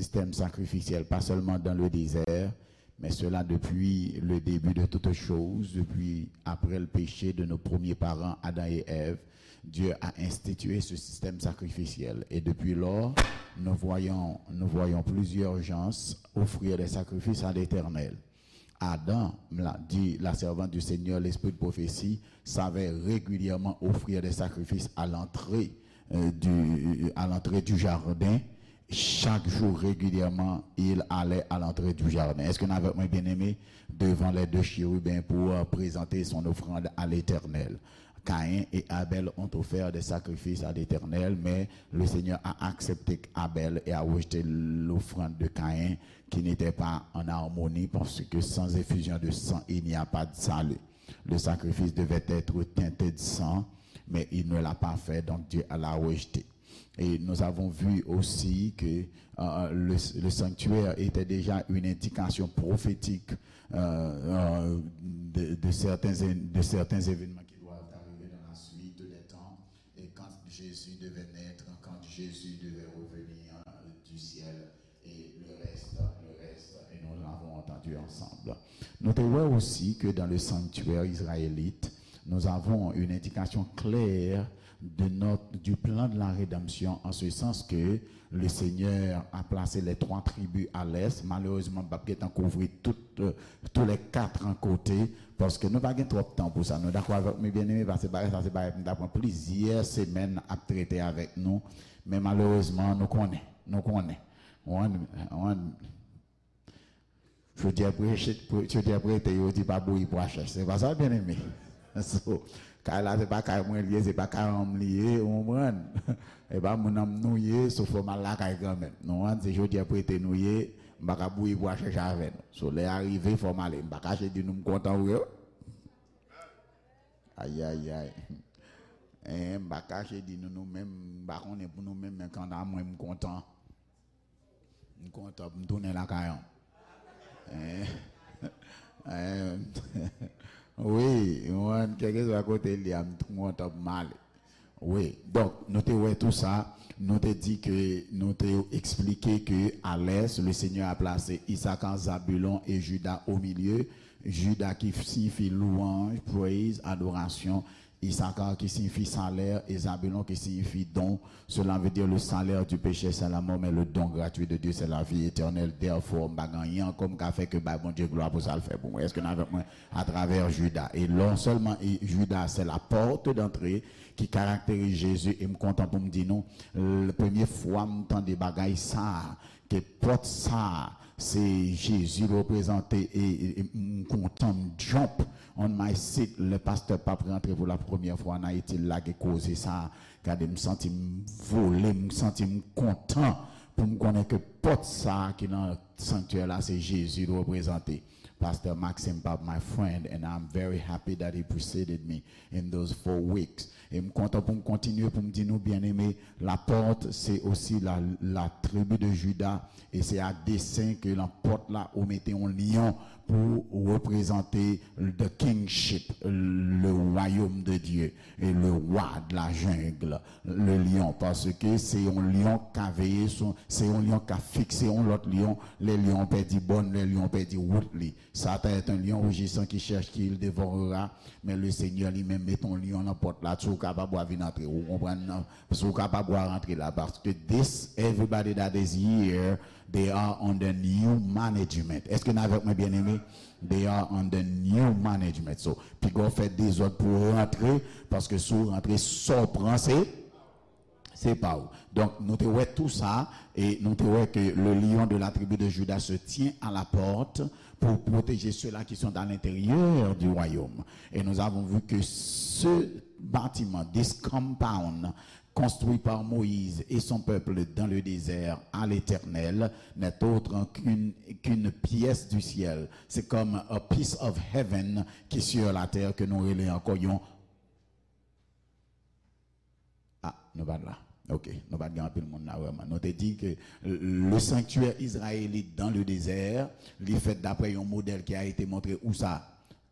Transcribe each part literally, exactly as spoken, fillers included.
système sacrificiel, pas seulement dans le désert, mais cela depuis le début de toutes choses, depuis après le péché de nos premiers parents, Adam et Ève. Dieu a institué ce système sacrificiel. Et depuis lors, nous voyons, nous voyons plusieurs gens offrir des sacrifices à l'Éternel. Adam, la, dit la servante du Seigneur, l'esprit de prophétie, savait régulièrement offrir des sacrifices à l'entrée, euh, du, à l'entrée du jardin. Chaque jour, régulièrement, il allait à l'entrée du jardin. Est-ce que nous avons bien aimé devant les deux chérubins pour euh, présenter son offrande à l'Éternel? Caïn et Abel ont offert des sacrifices à l'Éternel, mais le Seigneur a accepté Abel et a rejeté l'offrande de Caïn, qui n'était pas en harmonie, parce que sans effusion de sang, il n'y a pas de salut. Le sacrifice devait être teinté de sang, mais il ne l'a pas fait, donc Dieu l'a rejeté. Et nous avons vu aussi que euh, le, le sanctuaire était déjà une indication prophétique euh, euh, de, de certains, de certains événements qui doivent arriver dans la suite des temps. Et quand Jésus devait naître, quand Jésus devait revenir du ciel, et le reste, le reste, et nous l'avons entendu ensemble. Nous te voyons aussi que dans le sanctuaire israélite, nous avons une indication claire de notre, du plan de la rédemption, en ce sens que le Seigneur a placé les trois tribus à l'est. Malheureusement, m p ap gentan kouvri tout, euh, tous les quatre en côté, paske nou pa gen twòp tan pou sa. Nou dakò avèk mwen, byeneme, paske bagay sa se bagay m ta pran plizyè semèn ap trete avèk nou. Men malerezman, nou konnen, nou konnen. Ou konprann? Ou konprann? Chodyè prete, chodyè prete, yo di pa bouyi pwa chèch. Se pa sa, byeneme? So, kay la, se pa kay mwen li ye, se pa kay an m li ye, ou konprann? E pa moun an m nou ye, so fò m al lakay kanmenm. Nou konprann? Se chodyè prete nou ye, m pa ka bouyi pwa chèch avè nou. So, lè a rive, fò m ale. M pa kache di nou m kontan vre, wi. Ayayay. Eh, m pa kache di nou, nou menm, m pa konnen pou nou menm, men kanta mwen, m kontan. M kontan pou m tounen lakay an. Eh, eh, wi, mwen, kèlkeswa kote l ye a, m kontan pou m ale. Wi, donk, nou te wè tou sa, nou te di ke, nou te eksplike ke à l'est, le Seigneur a placé Issachar, Zabulon et Judas au milieu. Judas qui signifie louange, praise, adoration. Issachar qui signifie salaire et Zabulon qui signifie don. Cela veut dire le salaire du péché, c'est la mort, mais le don gratuit de Dieu, c'est la vie éternelle. Therefore, m pa gen anyen ankò m ka fè ke bay Bondye glwa pou sa l fè pou mwen. Èske n avèk mwen? Atravè Judas. E non sèlman e Judas, c'est la porte d'entrée qui caractérise Jésus. E m kontan pou m di nou, l-, premye fwa m tande bagay sa a, ke pòt sa a, se Jezi reprezante, e, e, e m kontan, m jump on my seat. Lè pastè p ap rantre pou la premyè fwa an Ayiti, l lage koze sa a. Gade, m santi m vole, m santi m kontan pou m konnen ke pòt sa a ki nan sanktyè la, se Jezi l reprezante. Pastor Maxime Pop, my friend, and I'm very happy that he preceded me in those four weeks. E m kontan pou m kontinye pou m di nou, byeneme, la porte, c'est aussi la, la tribu de Juda, e se a desen ke nan pòt la, ou mete yon lyon pou reprezante the kingship, le royaume de Dieu, e le roi de la jungle, le lion, paske se yon lyon k ka veye sou, se yon lyon k ka fikse yon lòt lyon, lè lyon pèdi bòn, lè lyon pèdi wout li. Satan est un lion rugissant qui cherche qui il dévorera, men le Senyè li menm met yon lyon nan pòt la, si w kapab w a vin antre, ou konprann nan, si w kapab w a rantre la, paske this, everybody that is here, they are under new management. Èske n avèk mwen, byeneme? They are under new management. So, piga w fè dezòd pou w rantre, paske si w rantre, sa w pran, se, se pa w. Donk, nou te wè tou sa, e nou te wè ke le lion de la tribu de Juda se tient à la porte pour protéger ceux-là qui sont à l'intérieur du royaume. Et nous avons vu que ce bâtiment, this compound, construit par Moïse et son peuple dans le désert à l'Éternel, n'est autre qu'une, qu'une pièce du ciel. C'est comme a piece of heaven qui est sur la terre, ke nou rele ankò yon. Ah, nou pa t la. Ok, nou pa t gen anpil moun la vrèman. Nou te di ke le sanctuaire israélite dans le désert, li fèt daprè yon modèl ki a été montré où ça?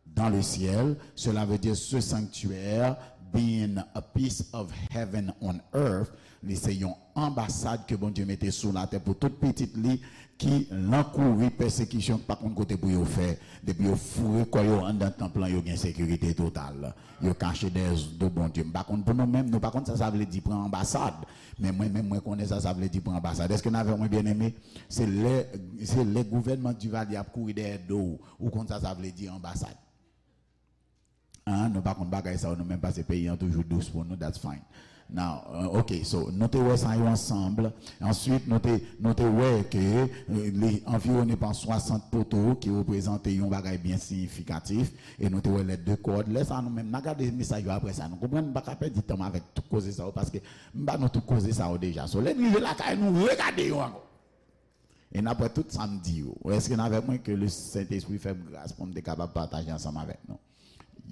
Dans le ciel. Cela veut dire ce sanctuaire being a piece of heaven on earth, li se yon anbasad ke Bondye mete sou latè pou tout pitit li ki lan kouri pèsekisyon, ki pa konn kote pou yo fè. Depi yo foure kò yo anndan tanp lan, yo gen sekirite total. Yo kache dèyè do Bondye. M pa konn pou nou menm, nou pa konn sa sa vle di pran anbasad. Men mwen menm, mwen konnen sa sa vle di pran anbasad. Èske n avè mwen, byeneme? Se lè, se lè gouvènman Duvalier ap kouri dèyè do w, ou konn sa sa vle di anbasad. An, nou pa konn bagay sa yo nou menm, paske peyi an toujou dous pou nou, that's fine. Now, uh, ok, so, nou te wè sa yo ansanm. Answit, nou te, nou te wè ke, euh, li anviwone pa swasant poto ki reprezante yon bagay byen siyifikatif, e nou te wè lè de kòd. Lè sa nou menm, n a gade mesaj yo apre sa. Nou konprann, m pa ka pèdi tan m avèk tout koze sa yo, paske m ba nou tout koze sa yo deja. So, lè n rive lakay nou, regade yo ankò. E n ap wè tout sa m di yo. Èske n avèk mwen? Ke le Sentespri fè m gras pou m te kapab pataje ansanm avèk nou.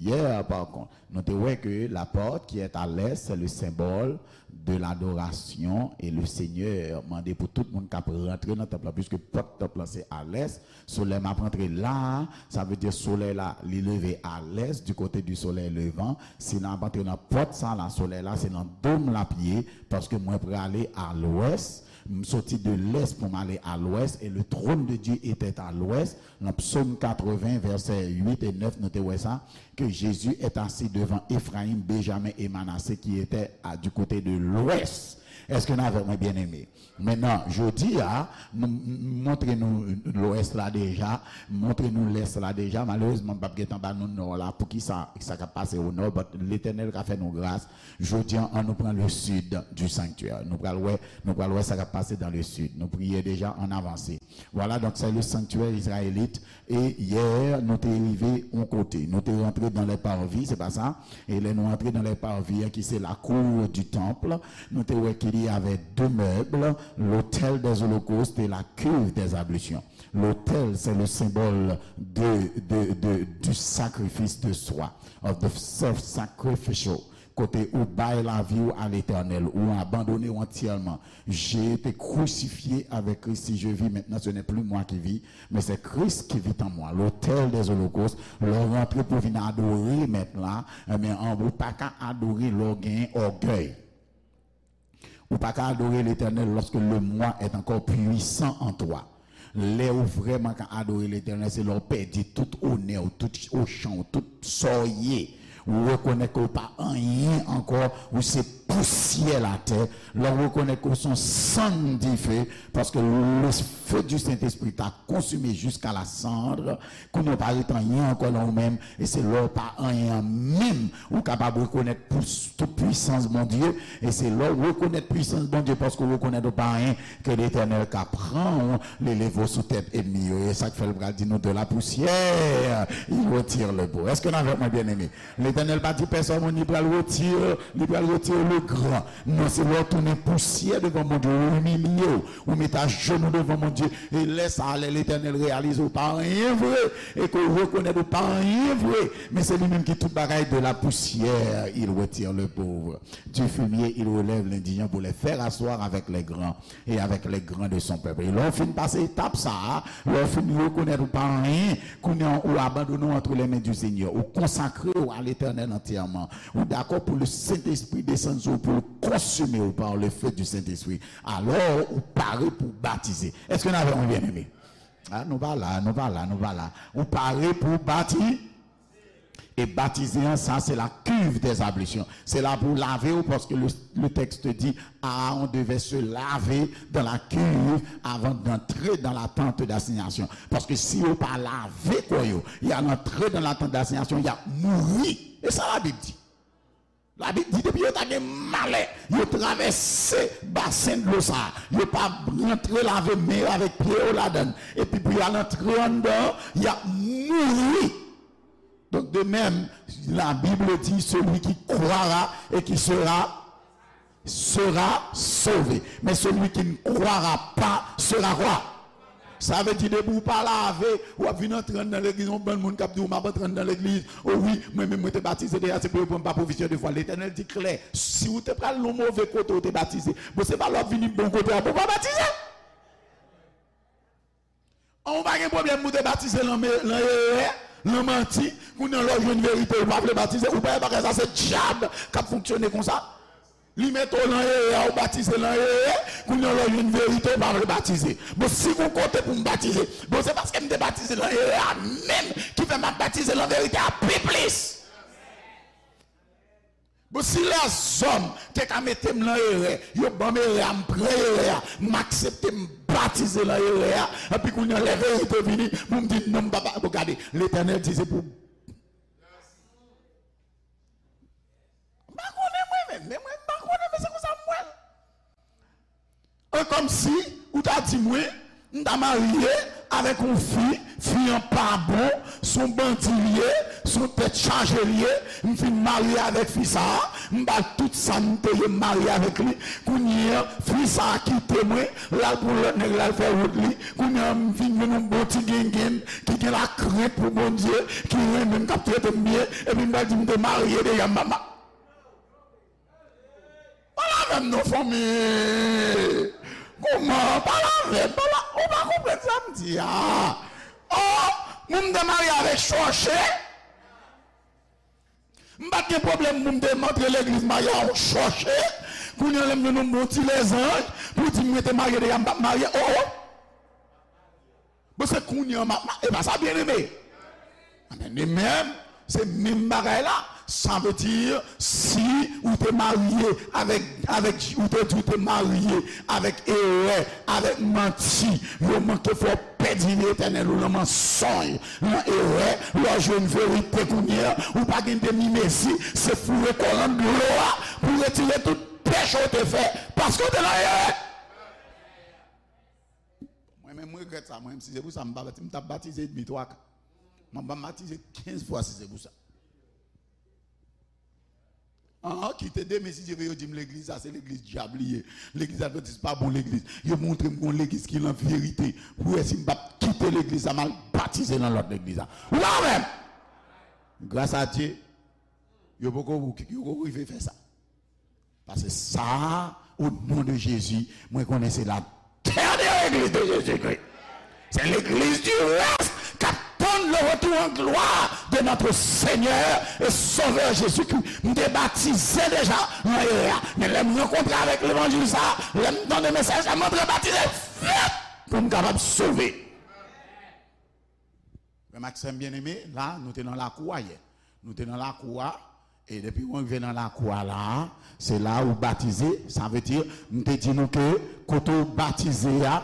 Yè, pa kont, nou te wè ke la porte qui est à l'est, c'est le symbole de l'adoration, et le Seigneur mande pou tout moun k ap rantre nan tanp lan, puisque pòt tanp lan se a lès. So, lè m ap rantre la, sa vle di solèy la, li leve a lès, du côté du soleil levant. Si n ap antre nan pòt sa la, solèy la, se nan do m l ap ye, paske mwen prale a lwès. M soti de l'est pou m ale a lwès, et le trône de Dieu était à l'ouest. Nan Psaume quatre-vingts, vèsè uit e nèf, nou te wè sa, que Jésus est assis devant Éphraïm, Benjamin et Manassé qui étaient à, du côté de l'ouest. Èske n avèk mwen, byeneme? Mentnan, jodi a, nou m- montre nou lwès la deja, montre nou lès la deja. Malerezman, m p ap gentan ba nou nò la. Poukisa sa k ap pase o nò? But Letènèl ka fè nou gras. Jodi a, an nou pran le sud du sanctuaire. Nou pral wè, nou pral wè sa k ap pase dans le sud. Nou priye deja, ann avanse. Voilà, donc c'est le sanctuaire israélite. E yè, nou te rive yon kote. Nou te rantre dans les parvis, se pa sa? E lè nou antre dans les parvis, ki se la cour du temple, nou te wè qu'il y avait deux meubles, l'autel des holocaustes et la cuve des ablutions. L'autel, c'est le symbole de, de, de, du sacrifice de soi, of the self-sacrificial. Kote ou bay lavi w a Letènèl, ou abandone w antyèman. J'ai été crucifié avec Christ. Si je vis maintenant, ce n'est plus moi qui vis, mais c'est Christ qui vit en moi. L'autel des holocaustes, lè w rantre pou vin adore Mèt la, ebyen, an, ou pa ka adore lè w gen ògèy. Ou pa ka adore Letènèl lorsque le moi est encore puissant en toi. Lè ou vrèman ka adore Letènèl, se lè w pèdi tout onè w, tout ochan w, tout sa w ye. Ou rekonèt ke w pa anyen ankò, ou se pousyè latè. Lè w rekonèt ke w se yon sann dife, paske le feu du Saint-Esprit t'a consumé jusqu'à la cendre, kounye a w pa ret anyen ankò nan ou menm, e se lè w pa anyen an menm, ou kapab rekonèt pou- tout pwisans Bondye, e se lè w rekonèt pwisans Bondye, paske w rekonèt ou pa anyen, ke Letènèl ka pran w, li leve w sou tèt ènmi yo. E sa k fè l pral di nou, de la poussière, il retire le beau. Èske n avèk mwen, byeneme? Letènèl pa di pèsonn, li pral retire, li pral retire le grand. Non, se lè w tounen pousyè devan Bondye, ou imilye w, ou mete ajenou devan Bondye. E lè sa a, lè Letènèl reyalize ou pa anyen vre, e ke w rekonèt ou pa anyen vre, men se li menm ki tout bagay, de la poussière, il retire le pauvre. Du fumier, il relève l'indigent pour les faire asseoir avec les grands et avec les grands de son peuple. E lè w fin pase etap sa a, lè w fin rekonèt ou pa anyen, kounye a ou abandone w entre les mains du Seigneur, ou konsakre w a Letènèl antyèman, ou dakò pou le Sentespri desann sou ou, pou l konsime w par le feu du Sentespri, alò ou pare pou batize. Èske n avè mwen, byeneme? A, nou pa la, nou pa la, nou pa la. Ou pare pou bati- E batize an, sa se la cuve des ablutions. Se la pou lave w, paske le, le texte dit, Aaron devait se laver dans la cuve avant d'entrer dans la tente d'assignation. Paske si yo pa lave kò yo, y al antre dans la tente d'assignation, y ap mouri. E sa Labib di. Labib di, depi yo ta gen malè, yo travèse basen dlo sa a, yo pa rantre lave men yo avèk pye yo ladan l, epi pou y al antre anndan an, y ap mouri. Donc, de même, la Bible dit, celui qui croira et qui sera, sera sauvé. Mais celui qui ne croira pas sera quoi? Sa vle di, depi w pa lave, w ap vin antre anndan legliz, yon bann moun k ap di w, "M ap antre anndan legliz. O wi, mwen menm, mwen te batize deja, se pou yo pran m pa profesyon de fwa." Letènèl di klè, si w te pral yon move kote w te batize, bon, se pa lè w ap vini bon kote a pou w pa batize. An, ou pa gen pwoblèm pou w te batize lan me-, lan erè, Nan manti, kounye an lè w jwenn verite, ou pa vle batize, ou pa wè bagay sa se dyab k ap fonksyone konsa. Li mete w nan erè, ou batize nan erè, kounye an lè w jwenn verite, ou pa vle batize. Bon, si gon kote pou m batize, bon, se paske m te batize nan erè a menm ki fè m ap batize nan verite a pi plis. Bon, si lèzòm te ka mete m nan erè, yo ban m erè a, m pran erè a, m aksepte m batize nan erè a, epi kounye an lè verite vini, pou m di non, m pa, pa, bon, gade, Letènèl di se pou. M pa konnen mwen menm, men mwen m pa konnen, men se konsa m wè l. E kòmsi ou ta di mwen, m ta marye avèk yon fi, fi an pa bon, s on bandi l ye, s on tèt chaje l ye, m fin marye avèk fi sa a, m ba l tout sa m te ye, m marye avèk li, kounye an, fi sa a kite mwen, l al pou lòt nèg, l al fè wout li, kounye an, m vin jwenn yon bon ti gengenn ki gen lakrent pou Bondye, ki renmen m, k ap trete m byen, epi m pral di m te marye deja, m pa ma-, Pale avè m non, fanmi. Kòman? Pale avè m. Pale, ou pa konprann sa m di a. Oh, moun m te marye avèk chòche. M pa t gen pwoblèm pou m te antre legliz marye a yon chòche. Kounye an lè m jwenn yon bon ti lèzanj pou di m mwen te marye deja, m p ap marye. Oh, oh. Bon, se kounye an m ap ma-, e pa sa, byeneme. Amèn. E menm, se menm bagay la. Sa vle di, si ou te marye avèk, avèk, ou te di ou te marye avèk erè, avèk manti, yo manke fè w pèdi vi etènèl ou nan mansonj, nan erè, lè w jwenn verite kounye an, ou pa gen demi mezi, se foure kò w nan dlo a pou retire tout peche w te fè, paske w te nan erè. Mwen menm, m regrèt sa. Mwen menm, si se pou sa, m pa bati-, m t ap batize edmi twa ka. Mwen pa batize kenz fwa si se pou sa. An, kite demen, si Dye vle, yo di m legliz sa, se legliz dyab li ye. Legliz advantis pa bon legliz. Yo montre m gon legliz ki nan verite. Pou wè si m p ap kite legliz sa, m al batize nan lòt legliz la. Ou pa wè m? Gras a Dye, yo poko, yo poko rive fè sa. Paske sa, au nom de Jésus, mwen konnen se la dernière église de Jésus-Christ. C'est l'église du reste k ap tann le retour en gloire de notre Seigneur et Sauveur Jésus-Christ. M te batize deja nan erè a. Men lè m rankontre avèk levanjil sa, lè m tande mesaj sa, m antre batize vit pou m kapab sove. Frè m ak sè m byeneme, la, nou te nan lakou a yè. Nou te nan lakou a, e depi mwen rive nan lakou a la, se la ou batize, sa vle di, m te di nou ke kote ou batize a,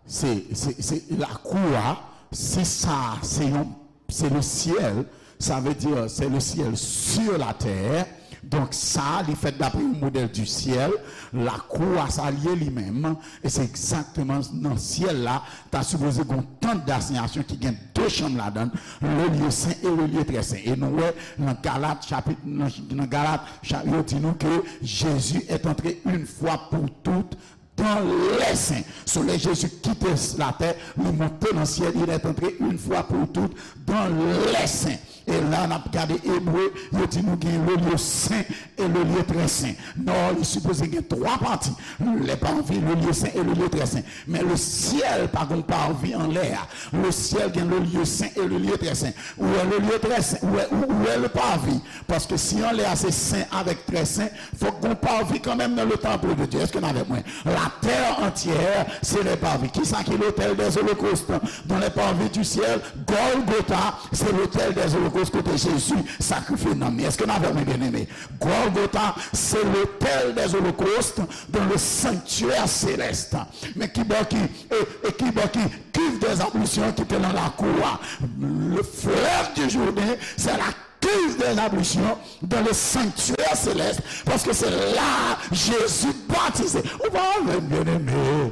se, se, se lakou a, se sa, se yon, se le ciel, sa vle di, c'est le ciel sur la terre. Donk, sa, li fèt dapre yon modèl du ciel. Lakou a, sa l ye li menm. E se egzakteman nan syèl la, ta sipoze gen yon tant d'assignation ki gen de chanm ladan l, le lieu saint et le lieu très saint. E nou wè nan Galat, chapit, nan, nan Galat, cha-, yo di nou ke Jésus est entré une fois pour toutes dans les saints. So, lè Jezi kite latè, li monte nan syèl, il est entré une fois pour toutes dans les saints. E la, n ap gade Ebre, yo di nou gen le lieu saint et le lieu très saint. Non, li sipoze gen twa pati. Le parvis, le lieu saint et le lieu très saint. Men le syèl pa gon parvis anlè a. Le syèl gen le lieu saint et le lieu très saint. Ou wè le lieu très saint, ou wè, ou, ou wè le parvis. Paske si anlè a se sen avèk trè sen, fòk gon parvis kanmenm nan le temple de Dieu. Èske n avèk mwen? La terre entière, c'est le parvis. Kisa ki l'autel des holocaustes? Dans le parvis du ciel, Golgotha, c'est l'autel des holocaustes kote Jezi sakrifye nanm li. Èske n avèk mwen, byeneme? Golgotha, c'est l'autel des holocaustes dans le sanctuaire céleste. Men kibò ki, e, e kibò ki cuve des ablutions ki te nan lakou a? Le fleuve du Jourdain, c'est la cuve des ablutions dans le sanctuaire céleste, paske se la Jezi batize. Ou pa avè m, byeneme?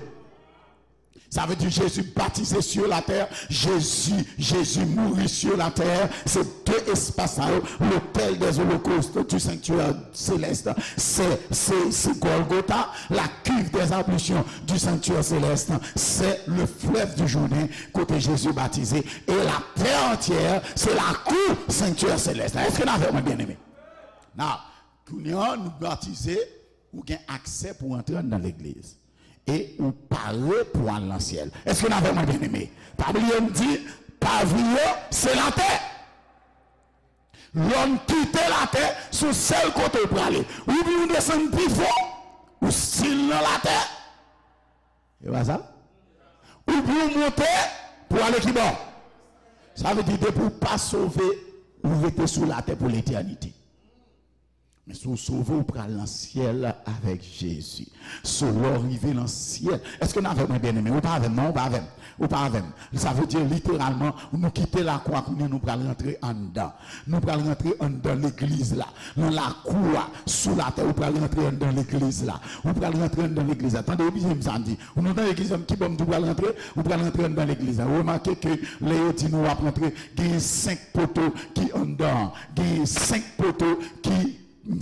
Sa vle di Jezi batize sur la terre, Jezi, Jezi mouri sur la terre, se de espas sa yo, l'autel des holocaustes du sanctuaire céleste, se, se, se Golgotha, la cuve des ablutions du sanctuaire céleste, c'est le fleuve du Jourdain, kote Jezi batize, et la terre entière, c'est la cour sanctuaire céleste. Èske n avè mwen, byeneme? Now, kounye a, nou batize, ou gen aksè pou antre anndan legliz. E ou pare pou al nan syèl. Èske n avè mwen, byeneme? Pa bliye m di, pavi yo, se latè. Lè w kite latè, se yon sèl kote w prale. Oubyen w desann pi fon, ou still nan latè. E pa sa? Oubyen w monte pou ale ki bò? Sa vle di, depi w pa sove, ou rete sou latè pou letènite. Men si w sove, ou pral nan syèl avèk Jezi. So, lè w rive nan syèl, èske n avè mwen, byeneme? Ou pa avè m, non, ou pa avè m. Ou pa avè m. Sa vle di, literalman, nou kite lakou a kounye a, nou pral rantre anndan. Nou pral rantre anndan legliz la. Nan lakou a, sou latè, ou pral rantre anndan legliz la. Ou pral rantre anndan legliz la. Tande byen sa m di. Ou nou tande ki, ki bò m di w pral rantre? Ou pral rantre anndan legliz la. Remake ke lè yo di nou w ap rantre, genyen senk poto ki anndan an. Genyen senk poto ki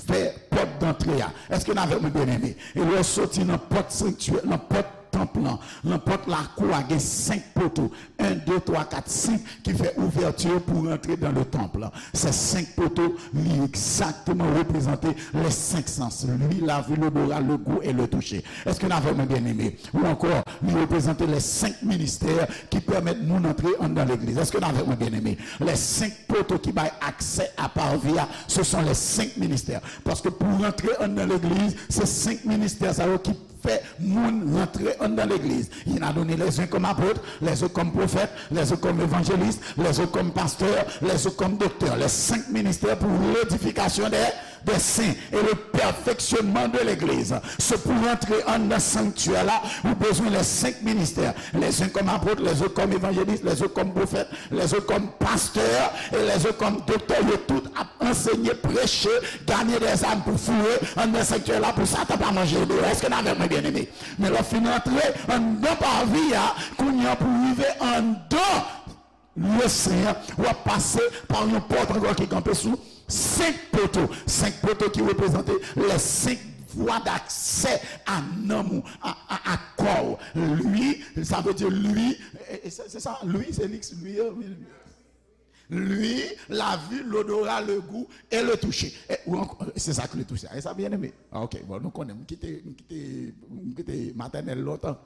fè pòt dantre a. Èske n avè mwen, byeneme? E lè w soti nan pòt sanktyè, nan pòt tanp lan, nan pòt lakou a, gen senk poto. En, de, twa, kat, senk ki fè ouvèti pou rantre dans le temple. Se senk poto, li egzakteman reprezante les cinq sens, l'ouïe, la vue, l'odorat, le goût et le toucher. Èske n avè mwen, byeneme? Ou ankò, li reprezante les cinq ministères ki pèmèt moun antre anndan legliz. Èske n avè mwen, byeneme? Les cinq poto ki bay aksè a parvis a, ce sont les cinq ministères. Paske pou rantre anndan legliz, se senk ministè sa yo ki fè moun rantre anndan legliz. Il a donné les uns comme apôtres, les autres comme prophètes, les autres comme évangélistes, les autres comme pasteurs, les autres comme docteurs. Les cinq ministères pour l'édification des, des saints et le perfectionnement de l'église. Se pou rantre anndan sanktyè la, ou bezwen les cinq ministères. Les uns comme apôtres, les autres comme évangélistes, les autres comme prophètes, les autres comme pasteurs et les autres comme docteurs. Yo tout ap ansenye, preche, ganye dèzam pou foure anndan sanktyè la pou Satan pa manje yo deyò. Èske n avè mwen, byeneme? Men lè w fin rantre anndan parvis a, kounye a pou rive anndan lye sen an, w ap pase pa yon pòt ankò ki kanpe sou senk poto. Senk poto ki reprezante les cinq voies d'accès à nanm ou, a, a, a kò w. Lui, sa vle di lui, e, e, se, se sa, lui, se li, lui, e, wi. L'ouïe, la vue, l'odorat, le goût et le toucher. E, ou ankò, se sa k le toucher. E sa, byeneme? Ah, ok, bon, nou konnen, m kite, m kite, m kite matènèl lontan.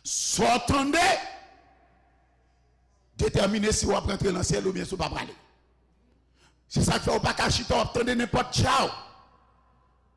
Sa w tande detèmine si w ap rantre nan syèl oubyen si w pa prale. Se sa k fè w pa ka chita, w ap tande nenpòt tchaw.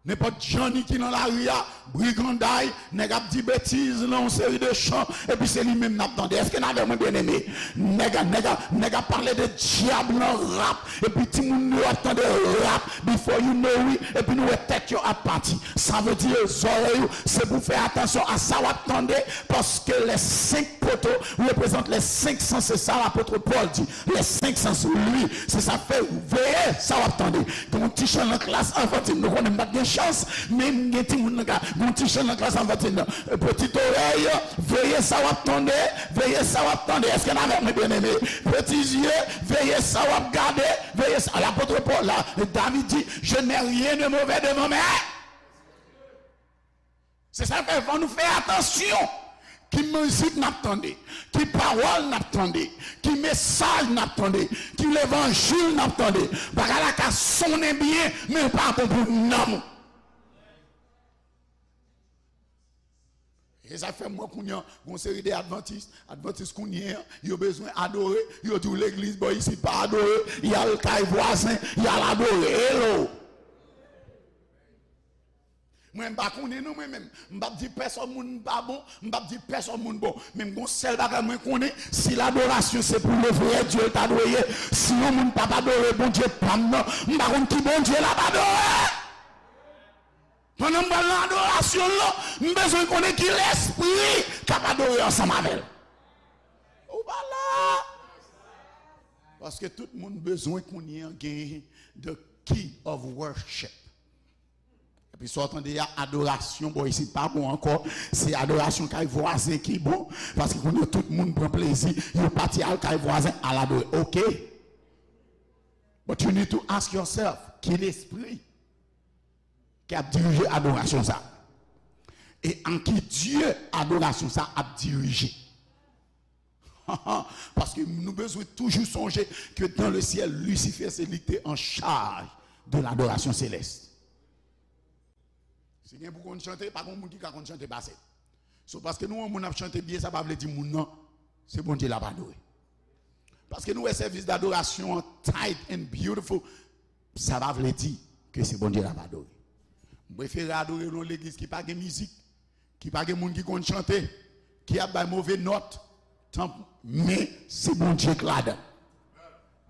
Nenpòt Johnny ki nan lari a, briganday, nèg ap di betiz nan yon seri de chan, epi se li menm n ap tande. Èske n avè mwen, byeneme? Nèg, nèg, nèg ap pale de dyab nan rap, epi timoun nou ap tande rap, before you know it, epi nou wè tèt yo ap pati. Sa vle di zòrèy ou, se pou fè atansyon a sa w ap tande, paske les cinq poteaux représentent les cinq sens, se sa lapot Pòl di. Les cinq sens, lui, se sa k fè veye sa w ap tande. Gen yon ti chan nan klas anfantil, nou konnen m pa t gen chans, men m gen timoun nan ka, gen yon ti chan nan klas anfantil nan. Petit oreille, veye sa w ap tande, veye sa w ap tande. Èske n avè mwen, byeneme? Petit yeux, veye sa w ap gade, veye sa. Lapot Pòl la, David di, je n'ai rien de mauvais devant mes. Se sa k fè fò nou fè atansyon ki mizik n ap tande, ki pawòl n ap tande, ki mesaj n ap tande, ki levanjil n ap tande. Bagay la ka sonnen byen, men l pa bon pou nanm ou. E sa fè m wè kounye a, gon seri de advantis, advantis kounye a, yo bezwen adore, yo di w legliz bò isit pa adore, y al kay vwazen, y al adore. Hello! Mwen, m pa konnen non, mwen menm. M p ap di pèsòn moun m pa bon, m p ap di pèsòn moun bon. Men m gon sèl bagay mwen konnen, si ladorasyon se pou le vrè Dye l ta dwe ye, si yon moun p ap adore Bondye pa m nan, m pa konn ki Bondye l ap adore. Pandan m pral nan adorasyon l lan, m bezwen konnen ki lespri k ap adore ansanm avè l. Ou pa la. Paske tout moun bezwen kounye a gen the key of worship. Epi sa w tande a, adorasyon bò isit pa bon ankò. Se adorasyon kay vwazen ki bon. Paske kounye a tout moun pran plezi, yo pati al kay vwazen al adore. Oke. But you need to ask yourself, ki lespri ki ap dirije adorasyon sa? E an ki Dye adorasyon sa ap dirije? Paske nou bezwen toujou sonje ke dans le ciel, Lucifer se li ki te an chaj de ladorasyon selès. Si gen pou konn chante, pa gen moun ki ka konn chante pase l. So, paske nou wè yon moun ap chante byen, sa pa vle di moun nan, se Bondye l ap adore. Paske nou wè sèvis dadorasyon an tight and beautiful, sa pa vle di ke se Bondye n ap adore. M prefere adore nan yon legliz ki pa gen mizik, ki pa gen moun ki konn chante, ki ap bay move nòt, tanp, men se Bondye k ladan.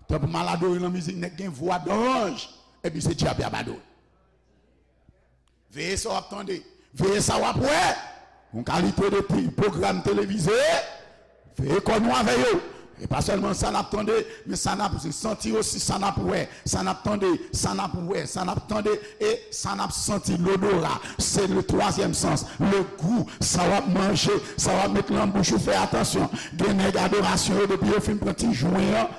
Tanp m al adore nan mizik, nèg gen vwa danj, epi se dyab y ap adore. Veye sa w ap tande. Veye sa w ap wè. Yon kalite de ti pwogram televize. Veye kò nou avè yo. E pa sèlman sa n ap tande, men sa n ap santi osi, sa n ap wè, sa n ap tande, sa n ap wè, sa n ap tande, e sa n ap santi, lodora. Se le twazyèm sans, le gou, sa w ap manje, sa w ap met nan bouch ou, fè atansyon. Gen nèg adorasyon yo, depi yo fin pran ti jwen an,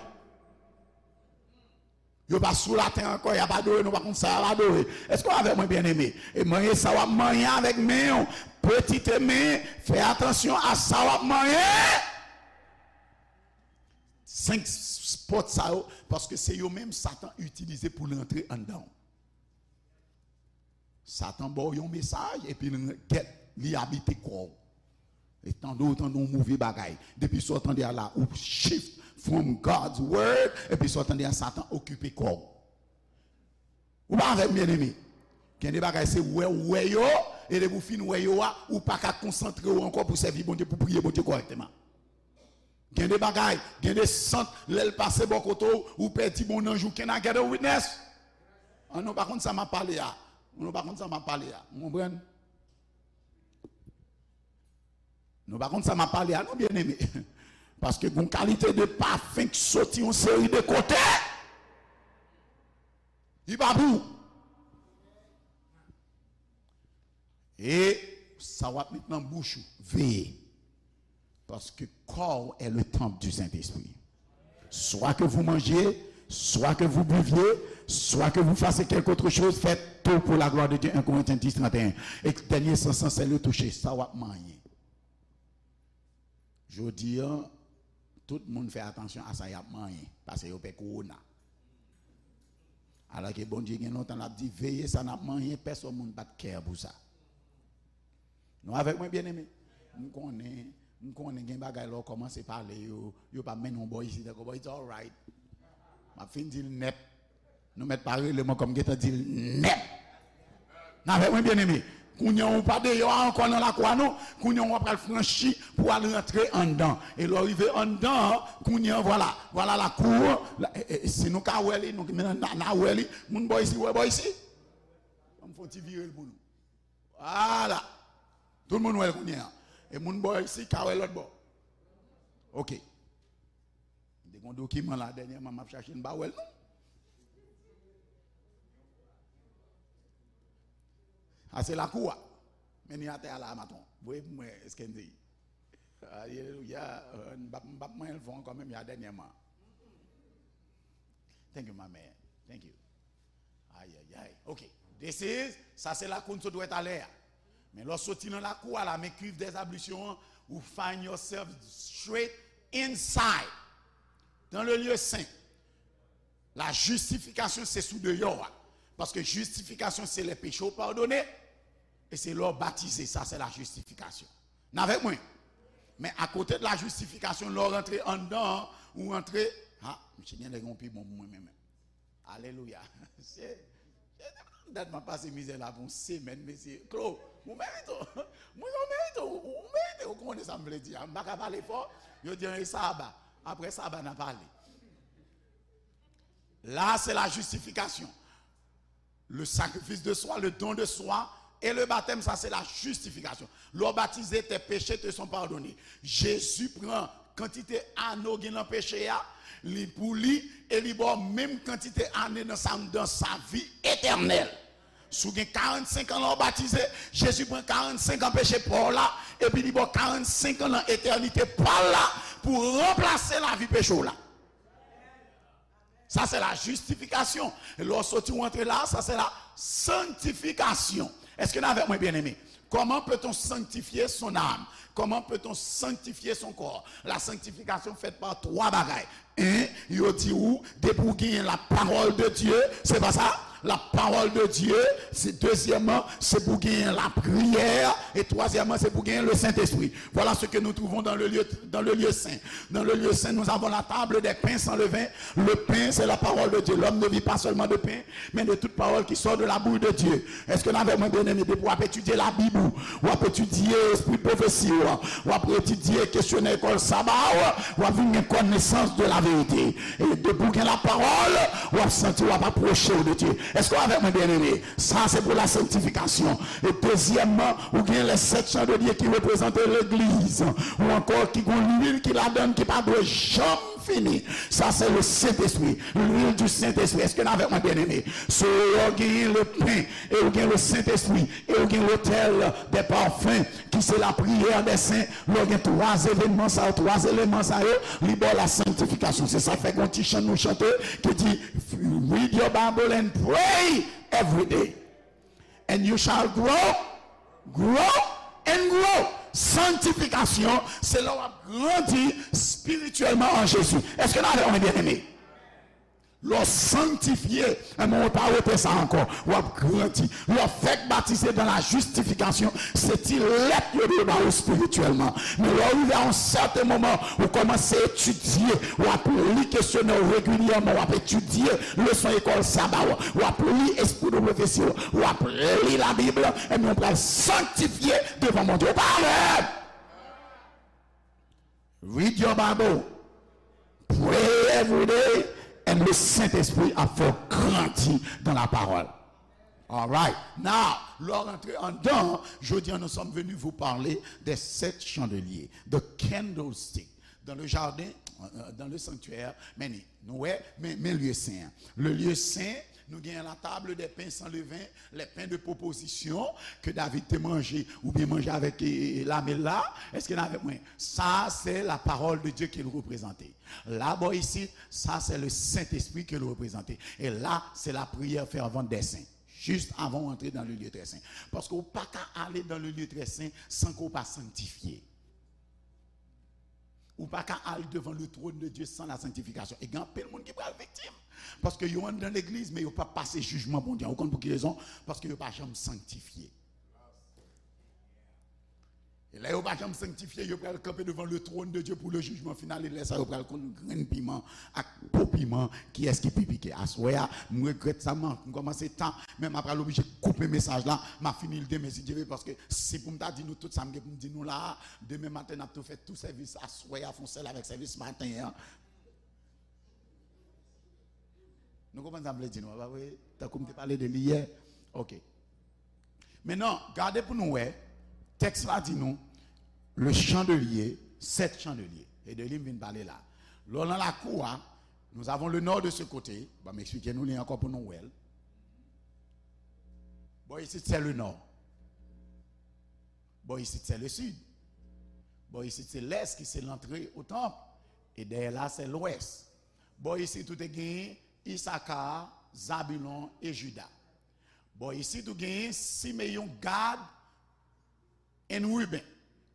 yo pa sou latè ankò, y ap adore, nou pa konn sa y ap adore. Èske w avè mwen, byeneme? E manye sa w ap manye avèk men w. Petite men, fè atansyon a sa w ap manye. Senk s-, s-, pòt sa yo, paske se yo menm Satan itilize pou l rantre anndan w. Satan ba w yon mesaj, epi l gèt, li abite kò w. E tande w tande yon move bagay. Depi sa w tande a la, ou shift from God's word, epi sa w tande a, Satan okipe kò w. Ou pa avè m, byeneme? Gen de bagay, se wè w wè yo, e depi w fin wè yo a, ou pa ka konsantre w ankò pou sèvi Bondye, pou priye Bondye kòrèkteman. Gen de bagay, gen de sant, lè l pase bò kote w, ou pèdi bon nanj ou. Can I get a witness? An, nou pa konn sa m ap pale a. Nou pa konn sa m ap pale a. Ou konprann? Nou pa konn sa m ap pale a, non, byeneme. Paske gon kalite de pafen k soti yon seri de kote. Li pa pou ou. E sa w ap met nan bouch ou, veye. Parce que corps est le temple du Saint-Esprit. Soit que vous mangiez, soit que vous buviez, soit que vous fassiez quelque autre chose, faites tout pour la gloire de Dieu, un Corinthiens dix, trente et un. E dènye sans lan, se le toucher, sa w ap manyen. Jodi a, tout moun fè atansyon a sa y ap manyen, paske yo pè kowona. Alòske Bondye gen lontan l ap di, veye sa n ap manyen, pèsonn moun pa t care pou sa. Nou avèk mwen, byeneme? M konnen, m konnen gen bagay lè w kòmanse pale yo, yo pa mennen w bò isit ankò, but it's alright. M ap fin di l nèt. Nou mèt pa rele m ankò, m gentan di l nèt. N avèk mwen, byeneme? Kounye a ou pa deyò a ankò nan lakou a non. Kounye a w ap pral franchi pou al rantre anndan. E lè w rive anndan an, kounye a, vwala, vwala lakou an. La, e, e, si nou ka wè li, nou, n a, n a wè li. Moun bò isi, wè bò isi. Ban m fè yon ti vire l pou nou. Vwala. Tout moun wè l kounye a. E moun bò isi ka wè lòt bò. Oke. M te gen yon dokiman la dènyèman, m ap chache l, m pa wè l non. A, se lakou a. Men li atè a la, maton. Voye pou mwen, Skendy. Alelouya. M p ap, m p ap manyen l fò ankò menm jan dènyèman. Thank you, my man. Thank you. Ayayay. Ok. This is, sa se lakou n sot wè talè a. Men lè w soti nan lakou a la, men cuve des ablutions an, ou find yourself straight inside. Dans le lieu saint. La justification, se sou deyò a. Paske justification, se lè peche w padone, e se lè w batize, sa se la justification. N avèk mwen? Men akote de la justification, lè w rantre anndan an, ou rantre, ha, misye gen lè gen yon pi bon pou mwen menm. Alelouya. Se, se, dat m ap pase mizè la pou yon semèn, mesye. Klo, ou merite w. Mwen, ou merite w. Ou merite w. Ou konnen sa m vle di a. M pa ka pale fò. Yo di an e saba. Apre saba, n a pale. La, se la justification. Le sacrifice de soi, le don de soi, et le baptême, sa se la justification. Lè w batize, tes péchés te sont pardonnés. Jezi pran kantite ane w gen nan peche a, li pou li, e li ba w menm kantite ane nan sa, dans sa vie éternelle. Si w gen karannsenk an lè w batize, Jezi pran karannsenk an peche pa w la, epi li ba w karannsenk an nan etènite pa l la, pou ranplase lavi peche w la. Sa se la justification. E lè w soti w antre la, sa se la sanctification. Èske n avèk mwen, byeneme? Comment peut-on sanctifier son âme? Comment peut-on sanctifier son corps? La sanctification fèt pa twa bagay. En, yo di ou, depi w genyen la parole de Dieu, se pa sa? La parole de Dieu, c'est deuxièmement, c'est pour gagner la prière, et troisièmement, c'est pour gagner le Saint-Esprit. Voilà ce que nous trouvons dans le lieu, dans le lieu saint. Dans le lieu saint, nous avons la table des pains sans levain. Le pain, c'est la parole de Dieu. L'homme ne vit pas seulement de pain, mais de toute parole qui sort de la bouche de Dieu. Èske n avèk mwen, byeneme? Depi w ap etidye Labib ou, w ap etidye espri pwofesi ou, w ap etidye kesyonè ekòl saba ou, w ap vin gen konesans de la verite. E depi w gen la parole, w ap santi w ap apwoche w de Dye. Èske w avèk mwen, byeneme? Sa se pou la sanctification. E dezyèmman, ou gen les sept chandeliers ki reprezante legliz, ou ankò ki gon lwil ki ladan l ki pa dwe janm fini. Sa se le Saint-Esprit, l'huile du Saint-Esprit. Èske n avèk mwen, byeneme? So, ou genyen le pain, e ou gen le Saint-Esprit, e ou gen l'autel des parfums, ki se la prière des saints. Lè w gen twa evènman sa yo, twa eleman sa yo, li ba w la sanctification. Se sa k fè gon ti chan nou chante ki di, "Read your Bible and pray every day, and you shall grow, grow and grow." Sanctification, se lè w ap grandi espirityèlman an Jezi. Èske n avèk mwen, byeneme? Lè w sanktifye, enben, ou pa rete sa ankò. W ap grandi. Lè w fèk batize dans la justification, se ti lèt yo dwe ba ou espirityèlman. Men lè w rive a yon sèten moman, ou kòmanse etidye, w ap li kesyonè w regilyèman, w ap etidye leson ekòl saba w, w ap li espri de pwofesi w, w ap li Labib, enben, ou pral sanktifye devan Bondye. Ou pa avè m? Read your Bible. Pray every day. And le Saint-Esprit ap fè w grandi dans la parole. All right. Now, lè w rantre anndan, jodi a, nous sommes venus vous parler des sept chandeliers, the candlestick, dans le jardin, euh, dans le sanctuaire. Men nou wè, men, men lye sen an. Le lieu saint, nou gen la table des pains sans levain, les pains de proposition que David te manje, oubyen manje avèk, e, e, lame la. Èske n avèk mwen? Sa, se la parole de Dieu ke l reprezante. La, bò isit, sa, se le Saint-Esprit ke l reprezante. E la, se la prière fervente des saints. Juste avant w antre dans le lieu très saint. Paske ou pa ka ale dans le lieu très saint san ke w pa sanktifye. Ou pa ka al devan le trône de Dieu sans la sanctification. E gen anpil moun ki pral viktim. Paske yo anndan legliz, men yo p ap pase jijman Bondye an. Ou konn pou ki rezon? Paske yo pa janm sanktifye. E lè yo pa janm sanktifye, yo pral kanpe devan le trône de Dieu pour le jugement final. E lè sa, yo pral konn grenn piman ak po piman, kiyès ki pi pike. Aswè a, m regrèt sa, m, m kòmanse ta, men m ap pral oblije koupe mesaj la. M ap fini l demen, si Dye vle, paske si pou m ta di nou tout sa m gen pou m di nou la a, demen maten, n ap tou fè tou sèvis aswè a, fè yon sèl avèk sèvis maten an. Nou konprann sa m vle di nou an, pa vre? Tankou m te pale de li yè. Ok. Mentnan, gade pou nou wè, tèks la di nou, le chandelier, sept chandeliers. E de li m vin pale la. Lè w nan lakou a, nous avons le nord de ce côté. Ban m eksplike nou li ankò pou nou wè l. Bò isit, se le nord. Bò isit, se le sud. Bò isit, se lès, ki se lantre o tanp. E dèyè la, se lwès. Bò isit, ou te gen Isaka, Zabilon e Jida. Bò isit, ou gen Simeyon, Gad, and Ruben.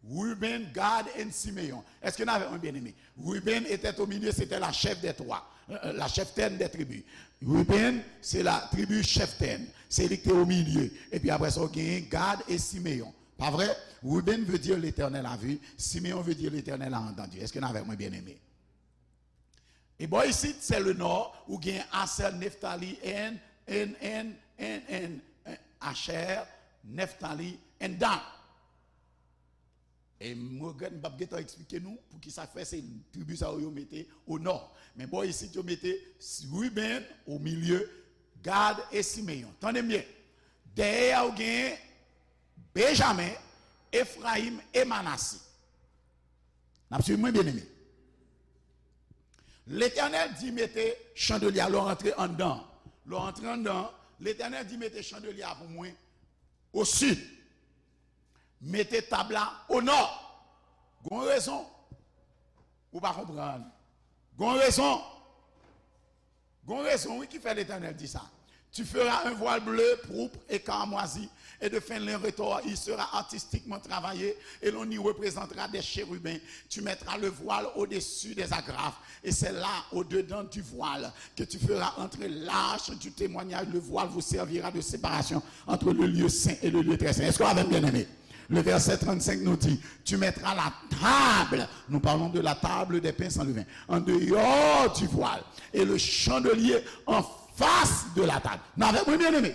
Ruben, Gad and Simeon. Èske n avèk mwen, byeneme? Ruben était au milieu, c'était la chef des trois, euh, euh, la cheftaine des tribus. Ruben, se la tribi cheftaine. Se li ki te o milye. Epi apre sa, w genyen Gad e Simeyon. Pa vre? Ruben veut dire l'Éternel a vu. Simeon veut dire l'Éternel a entendu. Èske n avèk mwen, byeneme? E bò isit, se le nò, ou gen Asè, Neftali, and, and, and, and, and, and, Asher, Neftali, and Dan. E m regrèt m p ap gentan eksplike nou poukisa fè se tribi sa yo, yo mete o nò. Men bò isit, yo mete Ruben o milye, Gad e Simeyon. Tande m byen. Dèyè a, ou gen Benjamen, Efrayim e Manase. N ap swiv mwen, byeneme? Letènèl di mete chandelye a, lè w rantre anndan. Lè w rantre anndan, Letènèl di mete chandelye a pou mwen o sid. Mete tab la o nò. Gon rezon. Ou pa konprann. Gon rezon. Gon rezon, wi, ki fè Letènèl di sa. Tu feras un voile bleu, pourpre et cramoisi, et de fin lin retors. Il sera artistiquement travaillé, et l'on y représentera des chérubins. Tu mettras le voile au-dessus des agrafes, et c'est là, au-dedans du voile, que tu feras entrer l'arche du témoignage. Le voile vous servira de séparation entre le lieu saint et le lieu très saint. Èske w avè m, byeneme? Le verset trente-cinq nous dit, tu mettras la table, nous parlons de la table des pains sans levain, en dehors du voile, et le chandelier en face de la table. N avèk mwen, byeneme?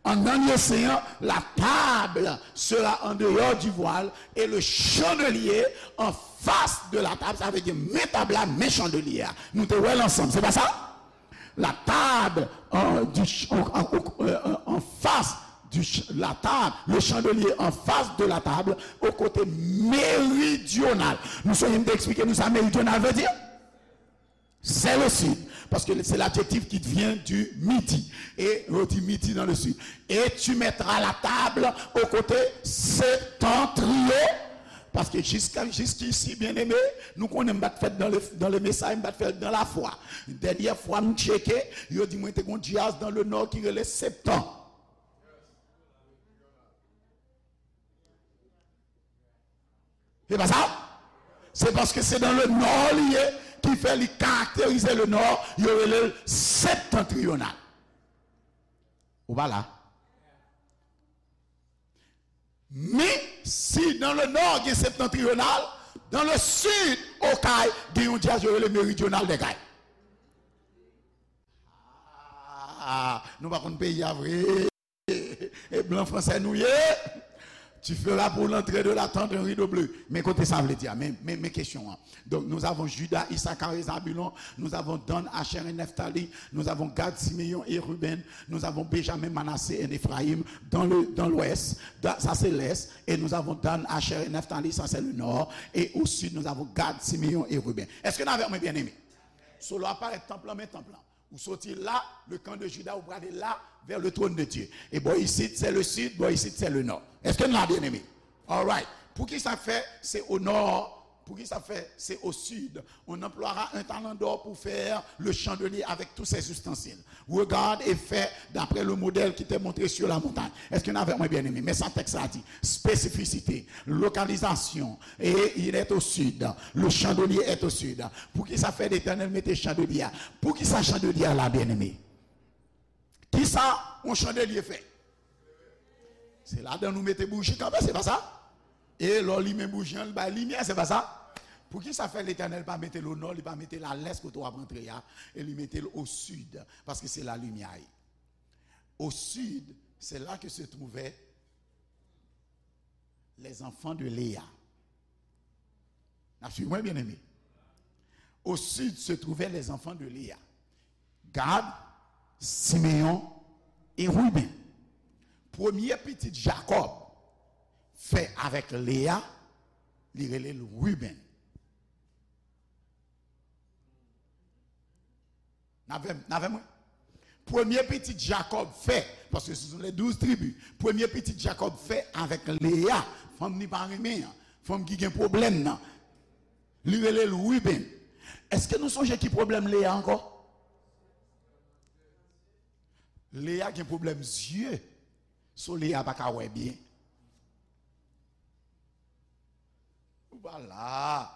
Anndan lye sen an, la table sera en dehors du voile et le chandelier en face de la table. Sa vle di, men tab la, men chandelye a. Nou te wè l ansanm, se pa sa? La table, euh, du ch-, en, en, euh, en face du ch-, la table, le chandelier en face de la table, au côté méridional. Nou sonje m te eksplike nou sa méridional vle di? C'est le sud, parce que c'est l'adjectif qui vient du midi. Et on dit midi dans le sud. Et tu mettras la table au côté septentrion. Paske jiska, jiskisi, byeneme, nou konnen m pa t fèt dans le, dans le message, m pa t fèt dans la foi. Dènyè fwa m tcheke, yo di mwen te gon djaz dans le nord ki rele Septan. Se pa sa? Se paske se dans le nord li ye, ki fè li karakterize le nord, yo rele l septentrional. Ou pa la? Men, si dans le nord gen septentrional, dans le sud, Okay, gen yon djaz yo rele méridional des Cayes. Ah, nou pa konn peyi a vre. E blan fransè nou ye. Tu feras pour l'entrée de la tente un rideau bleu. Men kote sa vle di a. Men, men, men kesyon an. Donc, nous avons Judas, Issachar et Zabulon. Nous avons Dan, Asher et Naphtali. Nous avons Gad, Simeon et Ruben. Nous avons Benjamin, Manassé et Éphraïm dans le, dans l'ouest. Da-, ça, c'est l'est. Et nous avons Dan, Asher et Naphtali, ça, c'est le nord. Et au sud, nous avons Gad, Simeon et Ruben. Èske n avèk mwen, byeneme? So, lè w ap parèt tanp lan, men tanp lan. Ou soti la, le camp de Juda, ou prale la, vers le trône de Dieu. E bò isit, se le sud, bò isit, se le nord. Èske n la, byeneme? Alright. Poukisa fè se au nord? Poukisa fè se au sud? On emploiera un talent d'or pour faire le chandelier avec tous ses ustensiles. Regarde et fais d'après le modèle qui t'est montré sur la montagne. Èske n avèk mwen, byeneme? Men sa tèks la di. Spesifisite, lokalizasyon, et il est au sud. Le chandelier est au sud. Poukisa fè Letènèl mete chandelye a? Poukisa chandelye a la, byeneme? Kisa yon chandelye fè? Se ladan nou mete bouji kanpe, se pa sa? E lè w limen bouji an, li bay limyè, se pa sa? Poukisa fè Letènèl pa mete l o nò, li pa mete l a lès kote w ap rantre a, e li mete l o sid, paske se la limyè ye. Au sud, c'est là que se trouvaient les enfants de Léa. N ap swiv mwen, byeneme. Au sud se trouvaient les enfants de Léa. Gad, Simeyon e Riben. Premye pitit Jakòb fè avèk Leya, li rele l Riben. N avè m, n avè mwen? Premye pitit Jakòb fè, paske se sou les douze tribus, premye pitit Jakòb fè avèk Leya, fanm li pa renmen an, fanm ki gen pwoblèm nan, li rele l Riben. Èske nou sonje ki pwoblèm Leya ankò? Leya gen pwoblèm zye, so Leya pa ka wè byen. Ou pa la.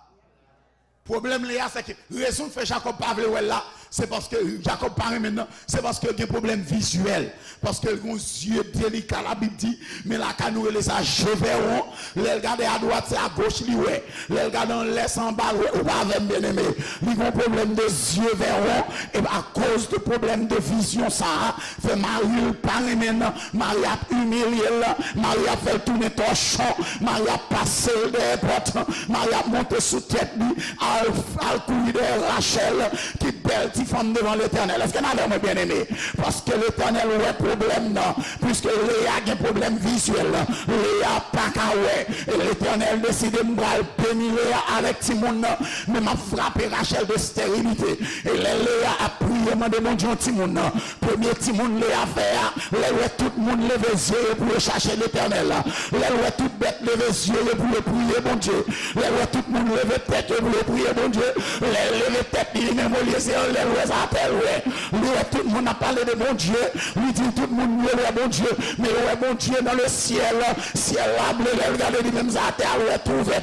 Pwoblèm Leya, se ke rezon k fè Jakòb pa vle wè l la, se paske Jakòb pa renmen l nan, se paske l gen pwoblèm vizyèl. Paske l gen yon zye delika, Labib di, men lakay nou rele sa je verron. Lè l gade adwat, se agoch li wè. Lè l gade anlè, se anba l wè. Ou pa avè m, byeneme? Li gen yon pwoblèm de je verron. E akoz de pwoblèm de vizyon sa a, fè mari l pa renmen l. Mari ap imilye l, mari ap fè l tounen tòchon, mari ap pase l dèyè pòt, mari ap monte sou tèt li, al, al kouri dèyè Rachèl, ki bèl ti fanm devan Letènèl. Èske n avè mwen, byeneme? Paske Letènèl wè pwoblèm nan, piske Leya gen pwoblèm vizyèl, Leya pa ka wè. E Letènèl deside, m pral beni Leya avèk timoun nan, men m ap frape Rachèl de stèrilite. E lè Leya ap priye, mande Bondye yon timoun nan, premye timoun Leya fè a, lè l wè tout moun leve zye yo pou yo chache Letènèl, lè l wè tout bèt leve zye yo pou yo priye Bondye, lè l wè tout moun leve tèt yo pou yo priye Bondye, lè l leve tèt li, li menm olye se anlè Lè sa atè l wè. Li wè tout moun ap pale de Bondye. Li di tout moun yo wè Bondye. Men yo wè Bondye nan le syèl. Syèl la ble, lè l gade li menm sa atè a, l wè tou ouvè.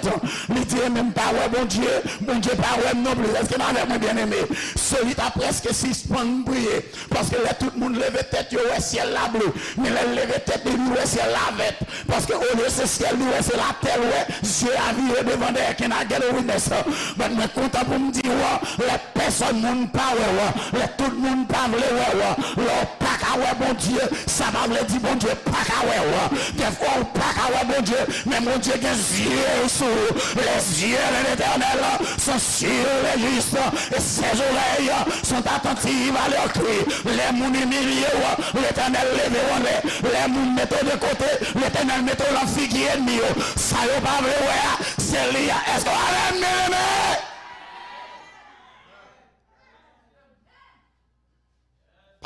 Li di, e men m pa wè Bondye. Bondye pa wè m non plis. Èske n avèk mwen, byeneme? Seli ta prèske sispann priye. Paske lè tout moun leve tèt yo, wè syèl la ble. Men lè l leve tèt li, li wè syèl la vèt. Paske olye se syèl li wè, se latè l wè. Zye a vire devan dèyè. Can I get a witness? But mwen kontan pou m di w, lè pèsòn moun pa wè w, lè tout moun pa vle wè w, lè w pa ka wè Bondye, sa pa vle di Bondye pa ka wè w. Dèfwa ou pa ka wè Bondye, men Bondye gen zye sou ou. Les yeux de l'Éternel sont sur les justes, et ses oreilles sont attentives à leur cri. Lè moun imilye w, Letènèl leve w anlè. Lè moun mete w de kote, Letènèl mete w nan figi ènmi yo. Sa yo pa vle wè a, se li a. Èske w avè m, byeneme?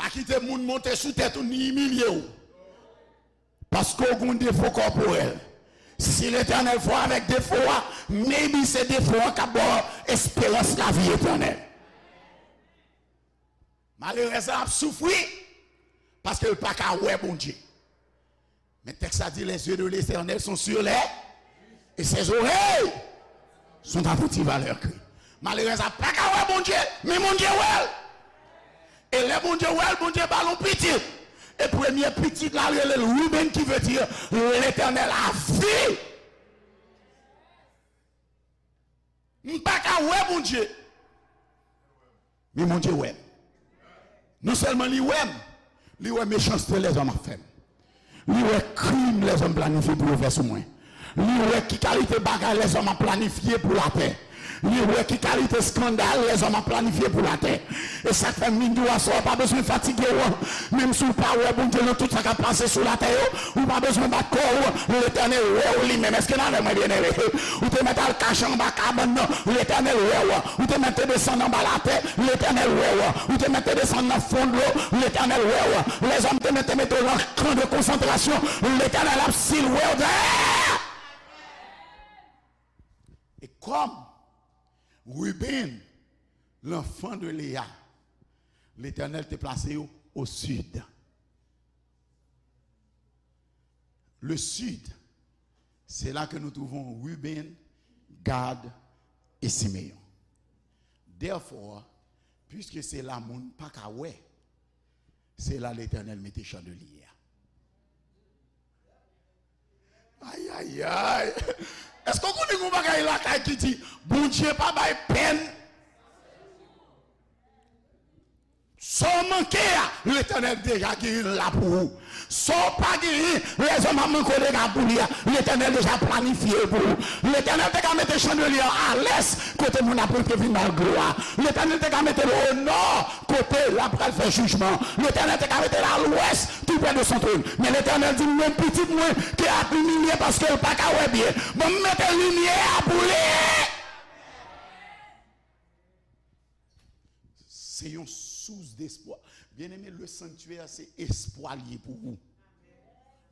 Pa kite moun monte sou tèt ou ni imilye w. Paske w gen yon defo kòporèl. Si Letènèl fè w avèk defo a, maybe se defo a k ap ba w esperans lavi etènèl. Malerèz la ap soufri paske l pa ka wè Bondye. Men tèks la di, les yeux de l'Éternel sont sur les, et ses oreilles sont attentives à leur cri. Malerèz la pa ka wè Bondye, men Bondye wè l. E lè Bondye wè l, Bondye ba l yon pitit. E premye pitit la rele l Ruben, ki vle di Letènèl a vi. M pa ka wè Bondye, men Bondye wè m. Non sèlman li wè m, li wè mechanste lèzòm ap fè m. Li wè krim lèzòm planifye pou yo fè sou mwen. Li wè ki kalite bagay lèzòm ap planifye pou latè. Li wè ki kalite eskandal lèzòm ap planifye pou latè. E sa k fè m vin di w aswè a, pa bezwen fatige w. Menm si w pa wè Bondye nan tout sa k ap pase sou latè yo, ou pa bezwen bat kò w. Letènèl wè w li menm. Èske n avè mwen, byeneme? Ou te mèt al kache anba kabann nan, Letènèl wè w. Ou te mèt te desann anba latè, Letènèl wè w. Ou te mèt te desann nan fon dlo, Letènèl wè w. Lèzòm te mèt te mete w nan kan de konsantrasyon, Letènèl ap silwe w dèyè. E kòm Ruben, l'enfant de Léa, Letènèl te plase yo au sud. Le sud, c'est là que nous trouvons Ruben, Gad et Siméon. Therefore, puisque se la moun pa ka wè, se la Letènèl mete chandelye a. Ayayay. Èske w konnen gen yon bagay lakay ki di, Bondye pa bay pèn? Sa w manke a, Letènèl deja genyen l la pou ou. Sa w pa genyen, lèzòm ap manke w deja pou li a, Letènèl deja planifye l pou ou. Letènèl te ka mete chandelye a alès, kote moun ap rantre vin ba l glwa. Letènèl te ka mete l onò, kote l ap pral fè jijman. Letènèl te ka mete l alwès, tou prè de son tròn. Men Letènèl di, men pitit mwen, ke ap imilye paske l pa ka wè byen. Ban m mete limyè a pou li. Se yon sous despwa. Byeneme, le sanctuaire, se espwa l ye pou ou.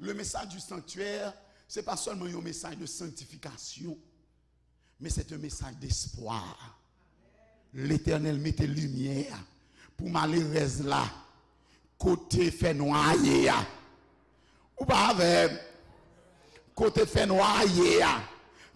Le message du sanctuaire, se pa sèlman yon mesaj de sanktifikasyon, men se yon mesaj despwa. Letènèl mete limyè pou malerèz la, kote fènwa a ye a. Ou pa avè m? Kote fènwa a ye a,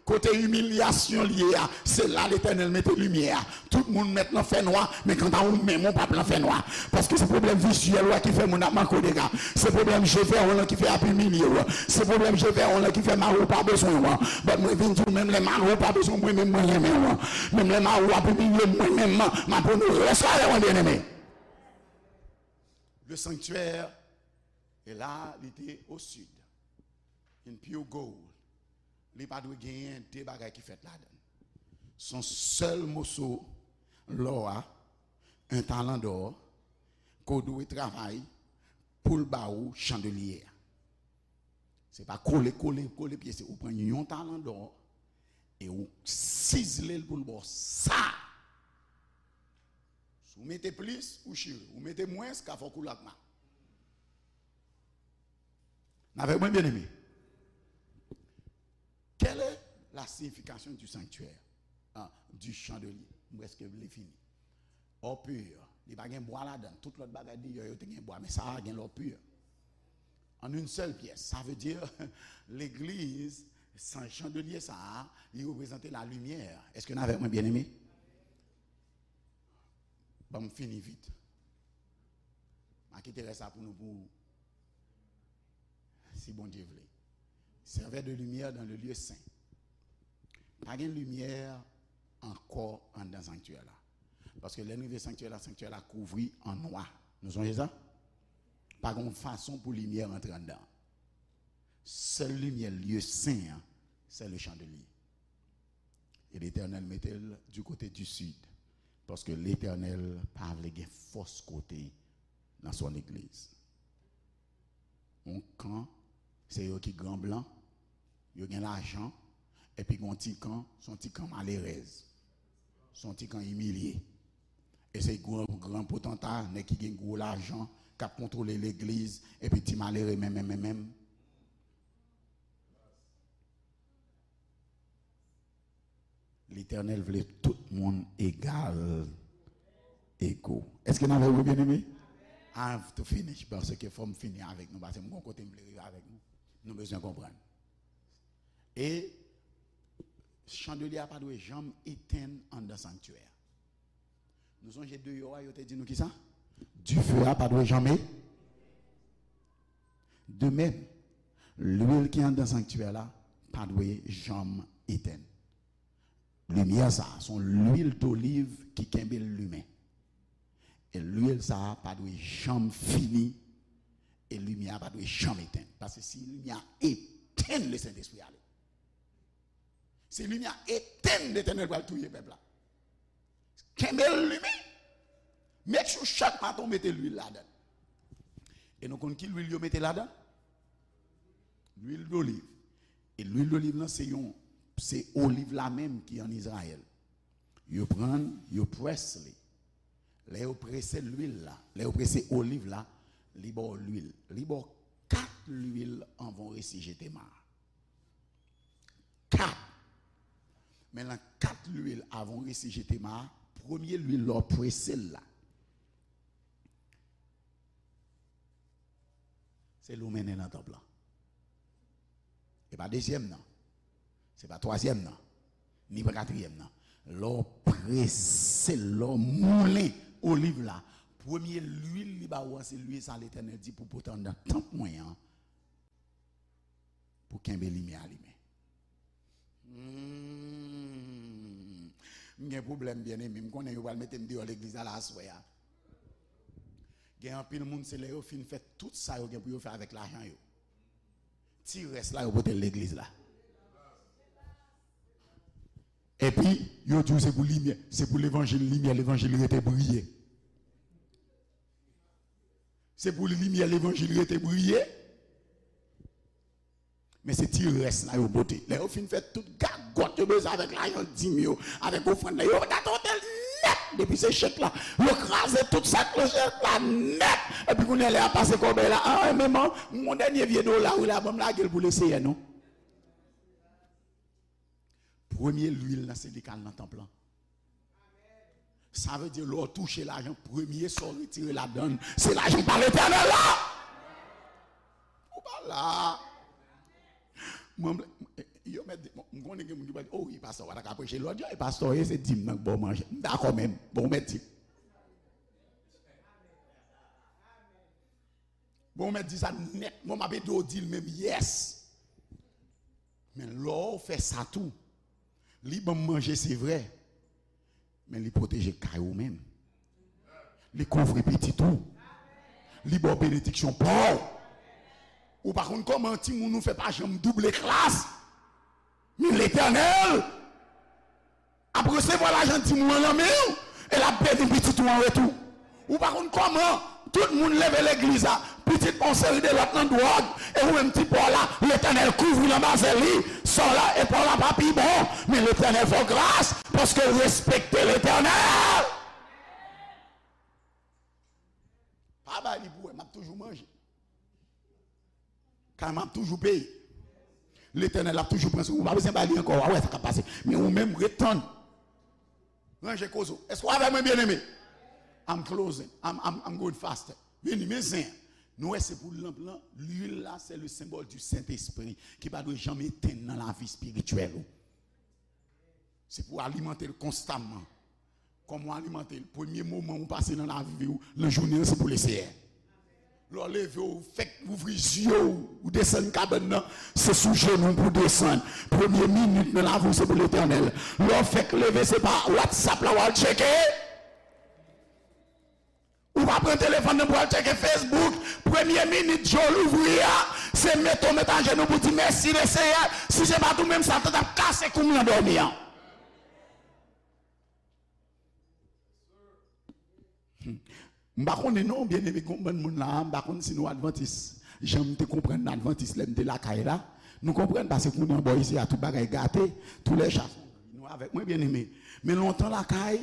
kote imilyasyon l ye a, se la Letènèl mete limyè a. Tout moun mèt nan fènwa, men kanta ou menm, ou p ap nan fènwa. Paske se pwoblèm vizyèl ou a ki fè moun ap manke w dega. Se pwoblèm je vè w lan ki fè y ap imilye w. Se pwoblèm je vè w lan ki fè mari w pa bezwen w. But mwen vin di w, menm lè mari w pa bezwen w, mwen menm mwen renmen w. Menm lè mari w ap imilye m, mwen menm m ap onore w. Èske w avè mwen, byeneme? Le sanctuaire, e la, li te au sud. In pure gold. Li pa dwe genyen de bagay ki fèt ladan l. Se yon sèl moso lò a, un talent d'or, ke w dwe travay pou l ba ou chandelye a. Se pa kole, kole, kole pyese. Ou pran yon talent d'or e ou sizle l pou l ba w sa. Si w mete plis, ou chire. Ou mete mwens, ka fè w koule ak mal. N avèk mwen, byeneme? Quelle est la signification du sanctuaire? Ah, du chandelier. M prèske vle fini. Or pur, Li pa gen bwa ladan. Tout lòt bagay deyò yo te gen bwa, men sa a gen lò pi. En une seule pièce. Sa vle di, legliz, san chandelye sa a, li reprezante la limyè. Èske n avèk mwen, byeneme? Ban m fini vit. M a kite rès la pou nou, pou, si Bondye vle. Servait de lumière dans le lieu saint. Pa gen limyè ankò anndan sanktyè la. Paske lè n rive sanktyè la, sanktyè la kouvri an nwa. Nou sonje sa? Pa gen yon fason pou limyè rantre anndan. Sèl limyè lye sen an, se le chandelier. E Letènèl mete l du côté du sud. Paske Letènèl pa vle gen fòs kote nan son legliz. Yon kan, se yo ki gran blan, yo gen lajan, epi gen yon ti kan, se yon ti kan malerèz, se yon ti kan imilye. E se gran, gran potanta, nèg ki gen gwo lajan, k ap kontwole legliz, epi ti malere menm, menm, menm, menm. Letènèl vle tout moun egal, ego. Èske n avèk mwen, byeneme? I have to finish, paske fò m fini avèk nou, paske m gon kote m vle rive avèk nou. Nou bezwen konprann. E chandelye a pa dwe janm etenn anndan sanktyè a. Nou sonje deyò a, yo te di nou kisa? Dife a pa dwe janm e-, de menm, lwil ki anndan sanktyè la pa dwe janm etenn. Limyè sa a, se yon lwil doliv ki kenbe l limen. E lwil sa a pa dwe janm fini, e limyè a pa dwe janm etenn. Paske si limyè a etenn, Lesentespri ale. Si limyè a etenn, Letènèl pral touye pèp la. Kenbe l limen. Make sure chak maten w mete lwil ladan l. E nou konn ki lwil yo mete ladan? Lwil doliv. E lwil doliv lan se yon, se oliv la menm ki ann Izrayèl. Yo pran l, yo près li. Lè yo prese lwil la, lè yo prese oliv la, li ba w lwil. Li ba w kat lwil anvan w resi jete ma a. Kat. Men nan kat lwil avan w resi jete ma a, premye lwil lè w prese l la, se li w mennen nan tanp lan. E pa dezyèm nan. Se pa twazyèm nan. Ni pa katriyèm nan. Lè w prese l, lè w moulen oliv la, premye lwil li ba ou an, se lwil sa Letènèl di pou pote anndan tanp mwen an, pou kenbe limyè a limen. Hmm. M gen pwoblèm, byeneme. M konnen yo pral mete m deyò legliz la, la aswè a. Gen anpil moun, se lè yo fin fè tout sa yo gen pou yo fè avèk lajan yo, ti rès la, yo pote l legliz la. Epi, yo di w se pou limyè, se pou levanjil limyè, levanjil rete briye. Se pou limyè levanjil rete briye. Men se ti rès la yo pote. Lè yo fin fè tout gagòt yo bezwen avèk lajan dim yo, avèk ofrann la, yo gate otèl nèt. Depi se chèk la, yo kraze tout sa k nan chèk la nèt. Epi kounye a lè y ap pase kòbèy la, ah, men man, m gon dènye vye dola wi la, ban m lage l pou Leseyè non. Premye lwil nan se li k al nan tanp lan. Sa vle di lè w touche lajan, premye sa w retire ladan l, se lajan pa Letènèl la. Ou pa la. Mwen, yo mèt di, bon, m konnen gen moun ki pral di, oh wi, pastè, w pa ta ka preche lòt jan, e pastè, e se dim nan k ba w manje. M dakò, men bon, w mèt di. Bon, w mèt di sa nèt. Mwen, m ap ede w di l menm, yes. Men lè w fè sa tou, li ban m manje, se vrè, men li pwoteje kay ou menm. Li kouvri pitit ou. Li ba w benediksyon pa w. Ou pa konn kòman timoun ou fè pa janm double klas. Men Letènèl ap resevwa lajan dim ou an nan men w, e l ap beni pitit ou an retou. Ou pa konn kòman tout moun leve legliz la, pitit pa yon seri de lòt nan dwòg, e ou menm ti pa w la, Letènèl kouvri l anba zèl li, sa w la, e pa w la pa pi bon, men Letènèl fè w gras, paske w respekte Letènèl. Pa bay li pou wè, m ap toujou manje. Kay mwen ap toujou peye. Letènèl ap toujou pran swen ou. Ou pa bezwen bay li ankò. Ou a wè sa k ap pase. Men ou menm, ret tann. Ranje koze w. Èske w avè mwen, byeneme? I'm closing. I'm, I'm, I'm going faster. Vini, men zen. Nou wè se pou lanp lan, lwil la, se le symbole du Saint-Esprit ki pa dwe janm etenn nan lavi espirityèl ou. Se pou alimante l konstamman. Kòman w alimante l? Premye moman ou pase nan lavi w, nan jounen an, se pou Leseyè. Lè w leve, w fèk ouvri zye w, ou desann kabann nan, se sou jenou w pou w desann. Premye minit nan lavi w, se pou Letènèl. Lè w fèk leve, se pa WhatsApp la w al tcheke. Ou pa pran telefòn nan pou al tcheke Facebook. Premye minit je w louvri a, se mete w met ajenou pou di, mèsi Leseyè. Si se pa t ou menm, Satan t ap kase kou m nan dòmi an. M pa konnen non, byeneme, gen yon bann moun la, m pa konn si nou advantis. Jan m te konprann advantis lè m te lakay la, nou konprann, paske kounye an bò isi a tout bagay gate, tou lè cha, nou avèk mwen, byeneme. Men lontan lakay,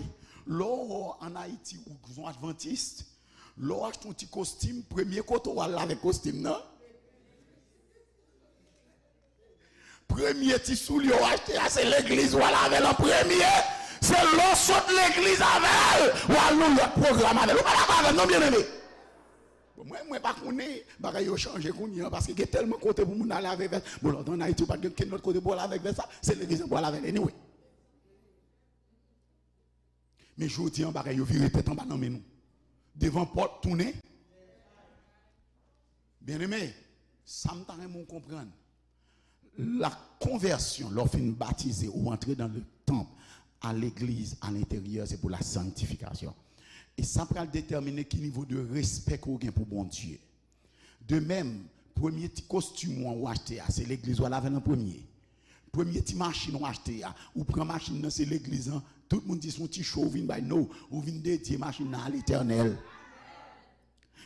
lè w an Ayiti ou son advantis, lè w achte yon ti kostim, premye kote w al avèk kostim nan, premye ti soulye w achte a, se legliz w al avè l an premye. Se lè w sot legliz avè l, w al nan yon lòt pwogram avè l. Ou pa dakò avè m non, byeneme? Bon, mwen, mwen pa konnen, bagay yo chanje kounye an, paske gen tèlman kote pou moun ale avèk vès. Bon, lòt an Ayiti, ou pa t gen kenn lòt kote pou al avèk vès sa, se legliz an pou al avè l anyway. Men jodi an, bagay yo vire tèt anba nan men nou. Devan pòt, tounen. Byeneme, sa m ta renmen w konprann. La konvèsyon, lè w fin batize, ou antre dans le temple, à l'église, à l'intérieur, c'est pour la sanctification. E sa pral detèmine ki nivo de respè ke w gen pou Bondye. De menm, premye ti kostim ou an ou achte a, se legliz ou al avè l an premye. Premye ti machin ou achte a, ou pran machin nan, se legliz lan, tout moun di se yon ti cho ou vin bay, no, ou vin dedye machin nan a Letènèl.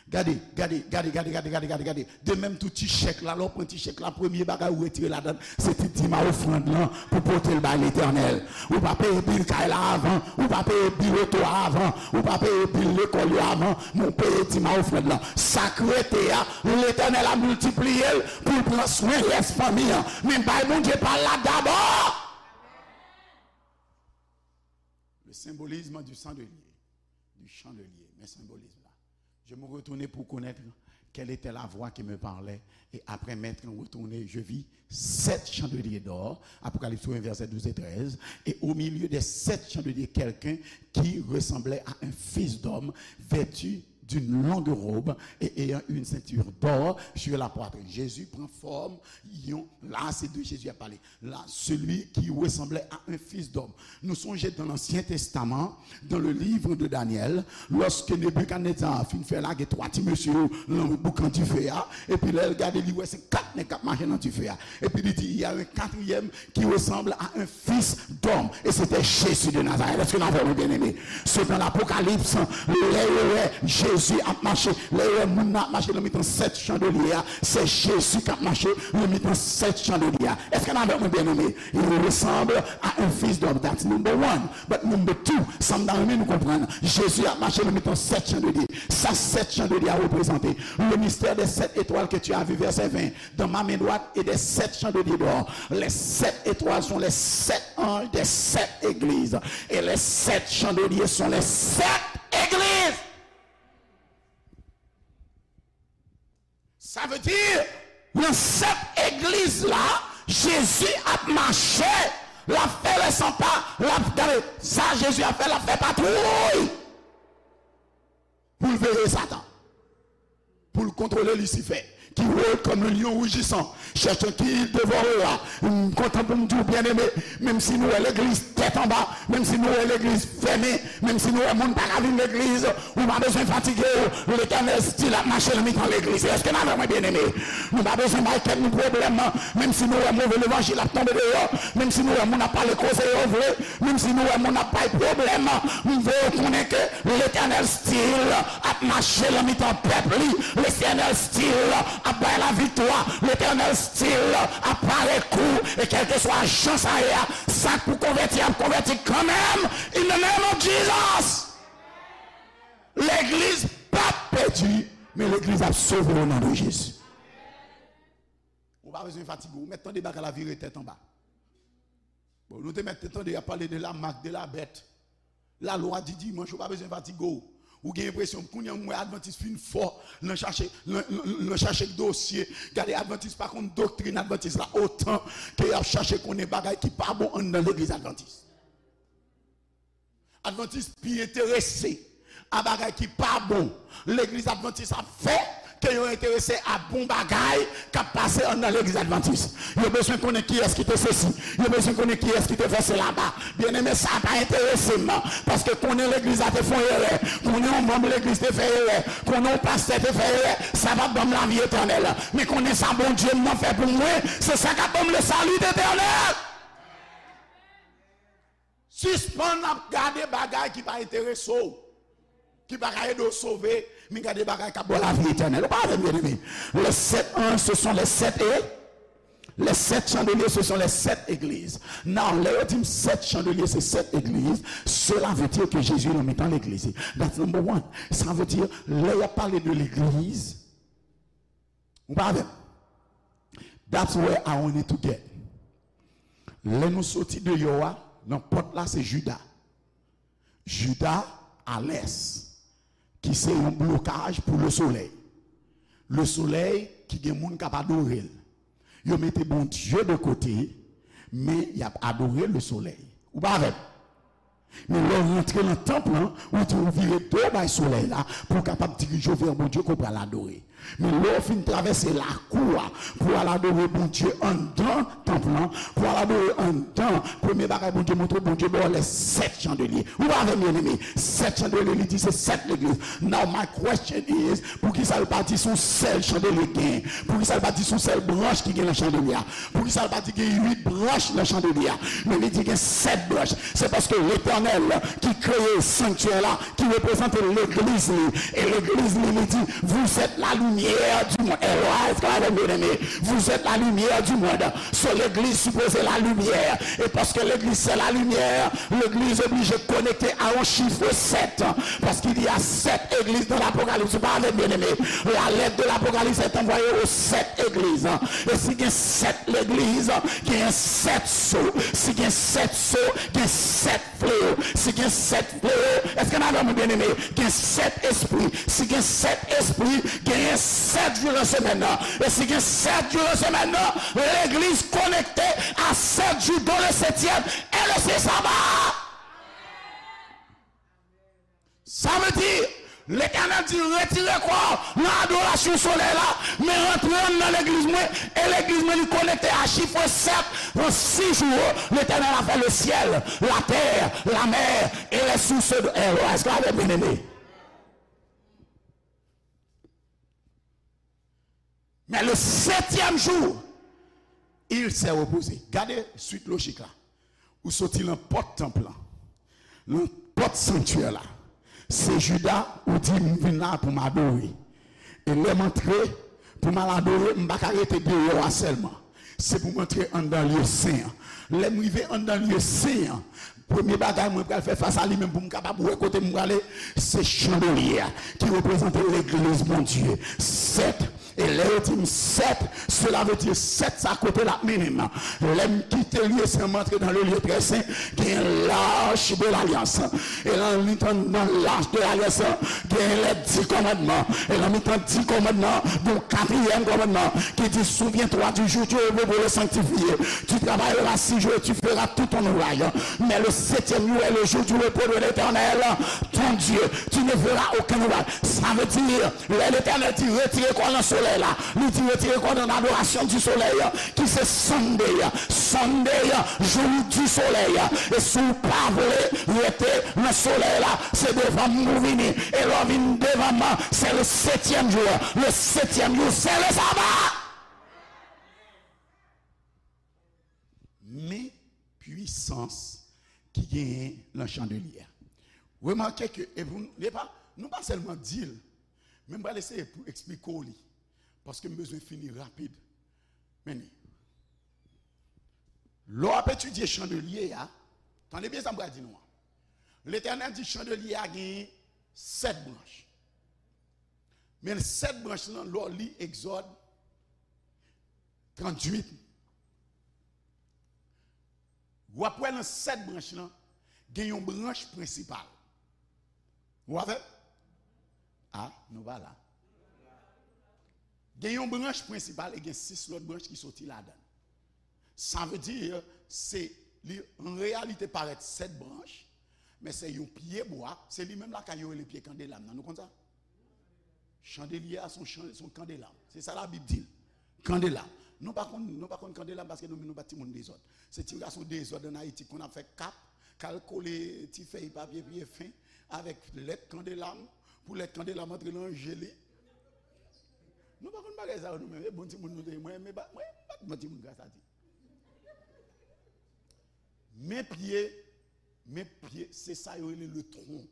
Gade, gade, gade, gade, gade, gade, gade, gade. De menm tou ti chèk la, lè w pran ti chèk la, premye bagay ou retire ladan l, se ti dim a ofrann lan pou pote l bay Letènèl. Ou pa peye bil kay la avan, ou pa peye bil oto a avan, ou pa peye bil lekòl yo avan, men w peye dim a ofrann lan. Sa k rete a, Letènèl ap miltipliye l pou l pran swen rès fanmi an. Men bay Bondye pa l la dabò. Le symbolisme du chandelier, du chandelier, men senbolis la. Je me retournai pour connaître quelle était la voix qui me parlait, et après m'être retourné, je vis sept chandeliers d'or, Apocalypse un, versets douze et treize, et au milieu des sept chandeliers, quelqu'un qui ressemblait à un fils d'homme, vêtu d'une longue robe et ayant une ceinture d'or sur la poitrine. Jésus prend forme, yon, la, se de Jésus a pale. La, celui qui ressemblait à un fils d'homme. Nou sonje dans l'Ancien Testament, dans le livre de Daniel, lòske Nebikadneza fin fè lage twa ti mesye yo nan boukan dife a, epi lè l gade, li wè se kat nèg k ap mache nan dife a. Epi li di, il y a un quatrième qui ressemble à un fils d'homme. Et c'était Jésus de Nazareth. Èske n avè mwen, byeneme? Se nan Apokalips, lè yo wè Jezi ap mache, lè yo wè moun nan ap mache nan mitan sèt chandelye a, se Jezi k ap mache nan mitan sèt chandelye a. Èske n avè mwen, byeneme? Il ressemble à un fils d'homme. That's number one. But number two, sa m ta renmen nou konprann, Jezi ap mache nan mitan sèt chandelye. Sa sèt chandelye a reprezante? Le mystère des sept étoiles que tu as vu, verset vingt, dans ma main droite et des sept chandeliers d'or. Les sept étoiles sont les sept anges des sept églises. Et les sept chandeliers sont les sept églises. Sa vle di, nan sèt egliz la, Jezi ap mache, l ap fè lè san pa, l ap, gade, sa Jezi ap fè, l ap fè patwouy pou l veye Satan, pou l kontwole Lisifè, qui rôde comme un lion rugissant, cherchant qui il dévorera. M kontan pou m di w, byeneme, menm si nou wè legliz tèt anba, menm si nou wè legliz fèmen, menm si nou wè moun pa ka vin legliz, ou pa bezwen fatige w. Letènèl still ap mache nan mitan legliz. Èske n avè mwen, byeneme? Nou pa bezwen bay tèt nou pwoblèm. Menm si nou wè move levanjil ap tonbe deyò, menm si nou wè moun ap pale koze yo vle, menm si nou wè moun ap bay pwoblèm, m voye w konnen ke Letènèl still ap mache nan mitan pèp li. Letènèl still ap bay laviktwa. Letènèl still ap pare kou. E kèlkeswa jan sa ye a, sa k pou konvèti ap konvèti kanmenm. In the name of Jesus. Legliz p ap pèdi, men legliz ap sove o non de Jezi. Ou pa bezwen fatige w, ou mèt tande bagay la vire tèt anba. Bon, nou te mèt te tande y ap pale de la marque de la bête. Lalwa di dimanch, ou pa bezwen fatige w. Ou gen enpresyon, kounye a m wè Advantis fin fò nan chache, nan, nan, nan chache dosye. Gade, Advantis pa konn doktrin Advantis la otan ke y ap chache konnen bagay ki pa bon anndan legliz Advantis. Advantis pi enterese a bagay ki pa bon legliz Advantis ap fè ke yo enterese a bon bagay k ap pase anndan legliz Advantis. Yo bezwen konnen kiyès ki te sesi. Yo bezwen konnen kiyès ki te fè sela. Byeneme, sa pa enterese m, paske konnen legliz la te fè yon erè, konnen yon manm legliz te fè erè, konnen yon pastè te fè erè, sa p ap ban m lavi etènèl. Men konnen sa Bondye m nan fè pou mwen, se sa k ap ban m le salut éternel. Sispann ap gade bagay ki pa enterese w, ki pa ka ede w sove, men gade bagay k ap ba w lavi etènèl. Ou pa avè m, byeneme? Les sept anges, ce sont les sept é-, les sept chandeliers, ce sont les sept églises. Now, lè yo di m sèt chandelye, se sèt egliz, cela veut dire que Jésus nan mitan legliz. That's number one. Sa vle di, lè y ap pale de legliz, ou pa avè m? That's where I want it to get. Lè nou soti deyò a, nan pòt la, se Jida. Jida a lès, ki se yon blokaj pou lesolèy. Lesolèy ki gen moun k ap adore l. Yo mete Bondye de kote, men y ap adore lesolèy. Ou pa avè m? Men lè w rantre nan tanp lan, ou di w vire do w bay solèy la pou w kapab dirije w vè Bondye ke w pral adore. Men lè w fin travèse lakou a pou w al adore Bondye anndan tanp lan, pou w al adore anndan, premye bagay Bondye montre w, Bondye ba w les sept chandeliers. Ou pa avè m, byeneme? Sèt chandelier, li di se sèt legliz. Now my question is, poukisa l pa di se yon sèl chandelye k genyen? Poukisa l pa di se yon sèl branch ki gen nan chandelye a? Poukisa l pa di gen uit branch nan chandelye a? Men li di gen sèt branch. Se paske Letènèl ki kreye sanktyè la, ki reprezante legliz li. E legliz li, li di, vous êtes la lumière du monde. Èlwa, èske w avè m, byeneme? Vous êtes la lumière du monde. So, legliz sipoze la limyè. E paske legliz se la limyè, legliz oblije konekte a yon chif sèt. Parce qu'il y a sept églises dans l'Apocalypse. Ou pa avè m, byeneme? La lettre de l'Apocalypse est envoyée aux sept églises. E si gen sèt legliz, gen sèt so. Si gen sèt so, gen sèt fleo. Si gen sèt fleo, èske n avè mwen, byeneme? Gen sèt espri. Si gen sèt espri, genyen sèt jou nan semèn nan. E si gen sèt jou nan semèn nan, legliz konekte a sèt jou, dont le septième est le saint sabbat. Sa vle di, Letènèl di, retire kò w nan adorasyon solèy la, men rantre anndan legliz mwen, e legliz mwen li konekte a chif sèt. Nan sis jou, Letènèl a fè le ciel, la terre, la mer et les sources de. Èske w avè m, byeneme? Men le septième jour, il s'est reposé. Gade swit lojik la. Ou soti nan pòt tanp lan, nan pòt sanktyè la. Se Jida, ou di, m vin la pou m adore. E lè m antre pou m al adore, m pa ka rete deyò a sèlman. Se pou m antre anndan lye sen an. Lè m rive anndan lye sen an, premye bagay mwen pral fè fas a li menm pou m kapab wè kote m prale, se chandelye a ki reprezante legliz Bondye. Sèt. E lè yo di m sèt, cela veut dire sèt sa kote l ap mennen m. Lè m kite lye sen, m antre dans le lieu très saint, gen lach de lalyans. E nan mitan, nan lach de lalyans, gen les dix commandements. E nan mitan dis kòmandman, gen yon katriyèm kòmandman ki di, souviens-toi du jour du repos pour le sanctifier. Tu travailleras six jours et tu feras tout ton ouvrage. Mais le septième jour est le jour du repos de l'Éternel, ton Dieu. Tu ne feras aucun ouvrage. Sa vle di, lè Letènèl di retire kò w nan solèy la, li di retire kò w nan adorasyon di solèy, ki se Sunday. Sunday, jou di solèy. E si w pa vle rete nan solèy la, se devan m ou vini. E lè w vin devan m, se le septième jour. Le septième jour, c'est le sabbat. Men pwisans ki genyen nan chandelye a. Remake ke, e pou, e pa, nou pa sèlman di l, men m pral eseye pou eksplike w li, paske m bezwen fini rapid. Men li. Lè w ap etidye chandelye a, tande byen sa m pral di nou an. Letènèl di chandelye a genyen sèt branch. Men sèt branch lan, lè w li Egzòd tranntuit, w ap wè nan sèt branch lan, gen yon branch prensipal. Ou avè m? A, nou pa la. Gen yon branch prensipal e gen sis lòt branch ki soti ladan l. Sa vle di, se, li an reyalite parèt sèt branch, men se yon pye bwa, se li menm lakay yo rele pye kandelab nan. Nou konn sa? Chandelye a se yon chan-, se yon kandelab. Se sa Labib di l. Kandelab. Nou pa konn, nou pa konn kandelab paske nou menm nou pa t timoun dezòd. Se ti gason dezòd ann Ayiti konn ap fè kap, k al kole ti fèy papye pye fen avèk lèt kandelab, pou lèt kandelab antre nan je li. Nou pa konn bagay sa yo nou menm. E bon timoun nou te ye. Mwen, mwen pa, mwen pa t bon timoun gras a Dye. Men pye, men pye, se sa yo rele le tronc.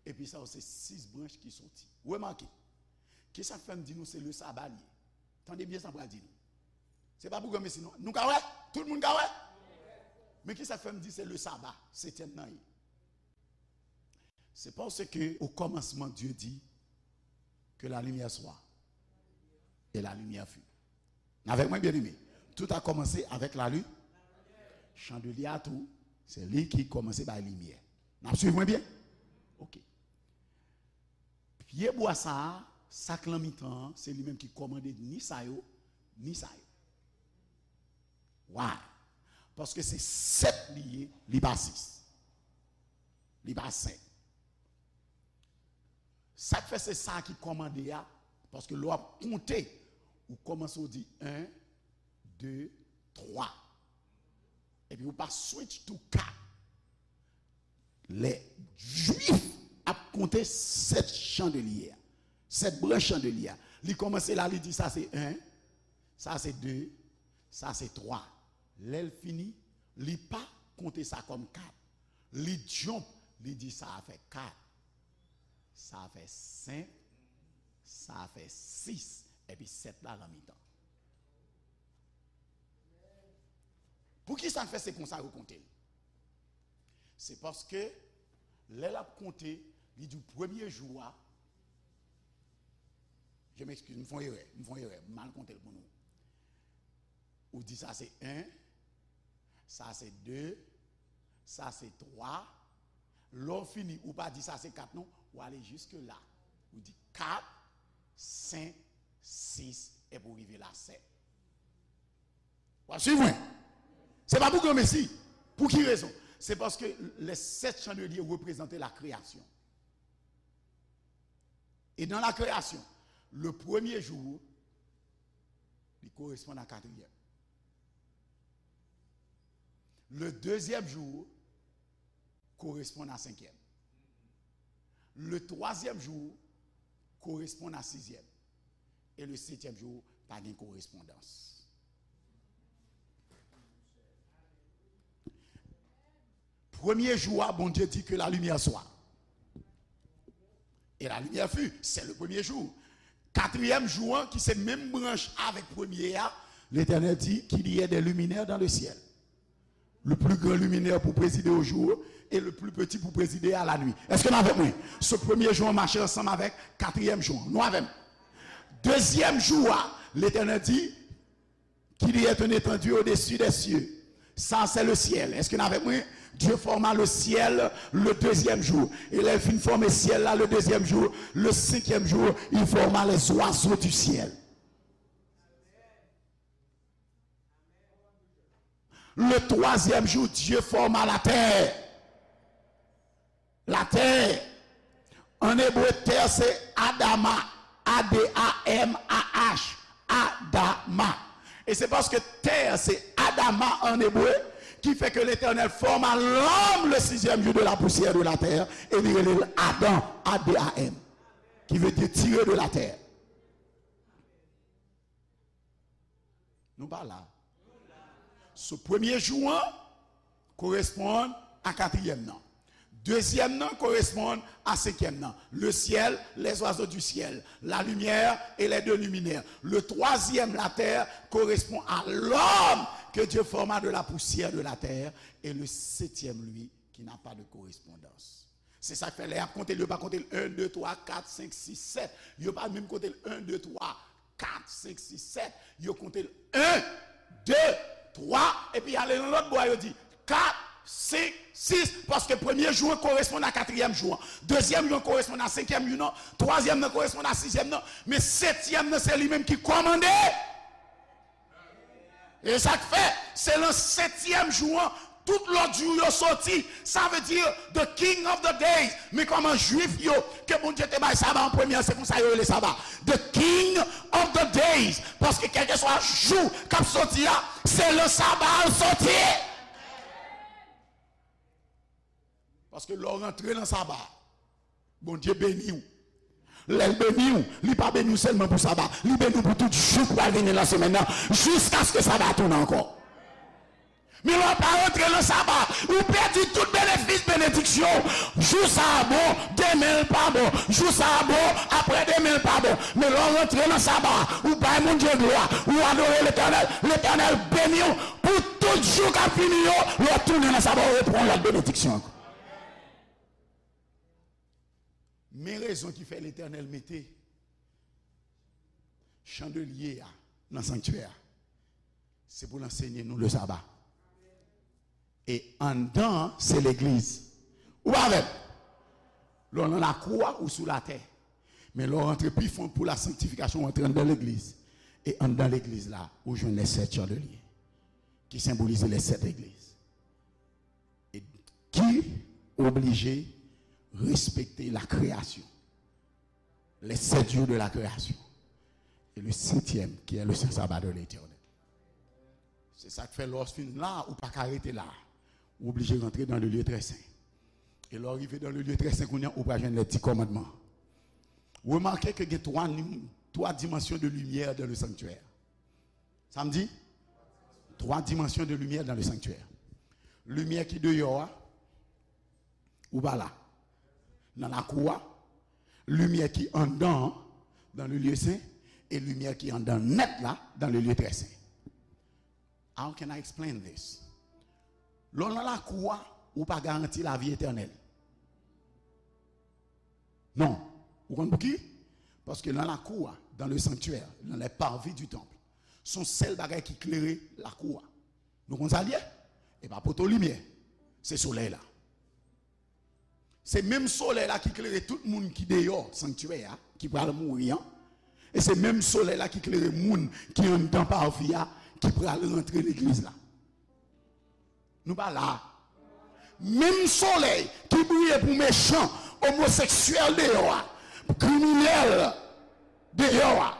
Epi sa yo se sis branch ki soti. Remake, kisa k fè m di nou se le saba l ye? Tande byen sa m pral di nou. Se pa pou granmesi non. Nou ka wè? Tout moun ka wè? Men kisa k fè m di se le saba, setyèm nan ye? C'est parce que au commencement, Dieu dit que la lumière soit. Et la lumière fut. N avèk mwen, byeneme? Tout a commencé avec la lumière. Chandelye a tou, se li ki kòmanse bay limyè. N ap swiv mwen byen? Ok. Pye bwa sa a, sa k lan mitan an, se li menm ki kòmande ni sa yo, ni sa yo. Why? Paske se sèt li ye, li pa sis. Li pa senk. Sa k fè se sa ki kòmande a, paske lè w ap konte, ou kòmanse w di en, de, twa. Epi ou pa switch to kat. Lè Jwif ap konte sèt chandelye a, sèt branch chandelye a, li kòmanse la, li di sa se en, sa se de, sa se twa. Lè l fini, li pa konte sa kòm kat. Li jump, li di sa a fè kat, sa a fè senk, sa a fè sis, epi sèt la nan mitan. Poukisa l fè se konsa yo konte l? Se paske lè l ap konte, li di w premye jou a, je m'excuse, m fè yon erè, m fè yon erè, m mal konte l pou nou. Ou di sa se en, sa se de, sa se twa. Lè w fini, ou pa di sa se kat non, ou ale jiske la. Ou di kat, senk, sis, epi w rive la sèt. W ap swiv mwen? Se pa pou granmesi. Pou ki rezon? Se paske lè sèt chandelye reprezante la kreyasyon. E nan la kreyasyon, le premye jou, li koresponn a katriyèm. Le dezyèm jou koresponn a senkyèm. Le twazyèm jou koresponn a sizyèm. E le setyèm jou, pa gen korespondans. Premye jou a, Bondye di ke la limyè swa. E la limyè fi, se le premye jou. Katriyèm jou an, ki se menm branch avèk premye a, Letènèl di, qu'il y ait des luminaires dans le ciel. Le plus grand luminaire pour présider au jour et le plus petit pour présider à la nuit. Èske n avèk mwen? Se premye jou an mache ansanm avèk katriyèm jou an. Nou avè m? Dezyèm jou a, Letènèl di, qu'il y ait un étendu au-dessus des cieux. Ça, c'est le ciel. Èske n avèk mwen? Dieu forma le ciel le deuxième jour. E lè l fin fòme syèl la le deuxième jour, le cinquième jour, il forma les oiseaux du ciel. Le troisième jour, Dieu forma la terre. La terre. En hébreu, terre, c'est Adama. A D A M A H. Adama. Et c'est parce que terre, c'est Adama en hébreu, qui fait que l'Éternel forma l'homme le sixième jour de la poussière de la terre, et li rele l Adam, A D A M, qui veut dire tiré de la terre. Nou pa la. So, premye jou an koresponn a katriyèm nan. Dezyèm nan koresponn a senkyèm nan. Le ciel, les oiseaux du ciel, la lumière et les deux luminaires. Le troisième, la terre, correspond à l'homme que Dieu forma de la poussière de la terre. Et le septième, lui, qui n'a pas de correspondance. Se sa k fè lè y ap konte l, yo pa konte l en, de, twa, kat, senk, sis, sèt. Yo pa menm konte l en, de, twa, kat, senk, sis, sèt. Yo konte l en, de, twa, epi y ale nan lòt bò a, yo di kat, senk, Sis, paske premye jou an koresponn a katriyèm jou an. Dezyèm jou an koresponn a senkyèm jou an. Twazyèm nan koresponn a sizyèm nan. Men setyèm nan, se li menm ki kòmande. E sa k fè, se nan setyèm jou an, tout lòt jou yo soti. Sa vle di, the king of the days. Men kòman Jwif yo, ke Bondye te bay saba an premye an, se konsa yo rele saba. The king of the days. Paske kèlkeswa jou k ap soti a, se nan saba a l soti. Paske lè w rantre nan saba, Bondye beni w. Lè l beni w, li pa beni w sèlman pou saba, li beni w pou tout jou k pral vini nan semèn nan, jiskaske saba a tounen ankò. Men lè w pa rantre nan saba, ou pèdi tout benefis, benediksyon. Jou sa a bon, demen l pa bon. Jou sa a bon, aprè demen l pa bon. Men lè w rantre nan saba, ou bay Bondye glwa, ou adore Letènèl, Letènèl beni w pou tout jou k ap vini yo. Lè w tounen nan saba, ou repran lòt benediksyon ankò. Men rezon ki fè Letènèl mete chandelye a nan sanktyè a, se pou l ansenye nou le saba. E anndan an, se legliz. Ou pa avè m? Lè w nan lakou a, ou sou latè. Men lè w rantre pi fon pou la sanktifikasyon, w antre anndan legliz. E anndan legliz la, ou jwenn les sept chandeliers, ki senbolize les sept legliz. E ki oblije respekte la création, les sept jours de la création, et le septième, qui est le saint sabbat de l'Éternel. Se sa k fè lè w fin la, ou pa ka rete la. Ou oblije rantre dans le lieu très saint. E lè w rive dans le lieu très saint, kounye a, ou pral jwenn les dix commandements. Remake ke gen twa nim-, twa dimansyon de limyè dans le sanctuaire. Sa m di? Twa dimansyon de limyè dans le sanctuaire. Limyè ki deyò a, ou pa la. Nan lakou a, limyè ki anndan an, dans le lieu saint, e limyè ki anndan nèt la, dans le lieu très saint. How can I explain this? Lè w nan lakou a, ou pa garanti lavi etènèl. Non. Ou konn pouki? Paske nan lakou a, dans le sanctuaire, dans les parvis du temple, se yon sèl bagay ki klere lakou a. Nou konn sa l ye? E pa poto limyè. Se solèy la. Se menm solèy la ki klere tout moun ki deyò sanktyè a, ki pral mouri an. E se menm solèy la ki klere moun ki anndan parvi a, ki pral rantre legliz la. Nou pa la. Menm solèy ki briye pou mechan, omoseksyèl deyò a, pou kriminèl deyò a,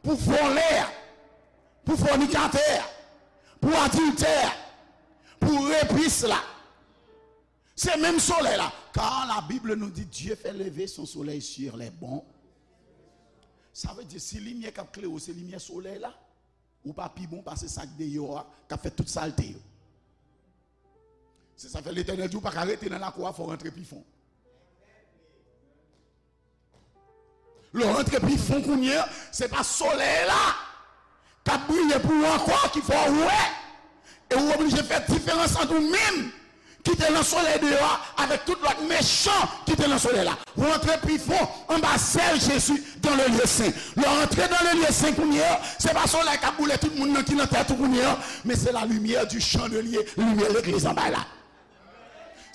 pou vòlè a, pou fònikatè a, pou adiltè a, pou repis la. Se menm solèy la. Car la Bible nous dit, Dieu fait lever son soleil sur les bons. Sa vle di, si limyè k ap klere w se limyè solèy la, ou pa pi bon pase sa k deyò a, k ap fè tout salte yo. Se sa fè Letènèl di w pa ka rete nan lakou a, fò w rantre pi fon. Lè w rantre pi fon kounye a, se pa solèy la k ap briye pou ou ankò ki fè w wè. E ou oblije fè diferans ant ou menm ki te nan solèy deyò a avèk tout lòt mechan ki te nan solèy la. Ou rantre pi fon anba zèl Jezi dans le lieu saint. Lè w rantre dans le lieu saint kounye a, se pa solèy k ap boule tout moun nan ki nan tèt ou kounye a, men se la lumière du chandelier, limyè legliz an bay la.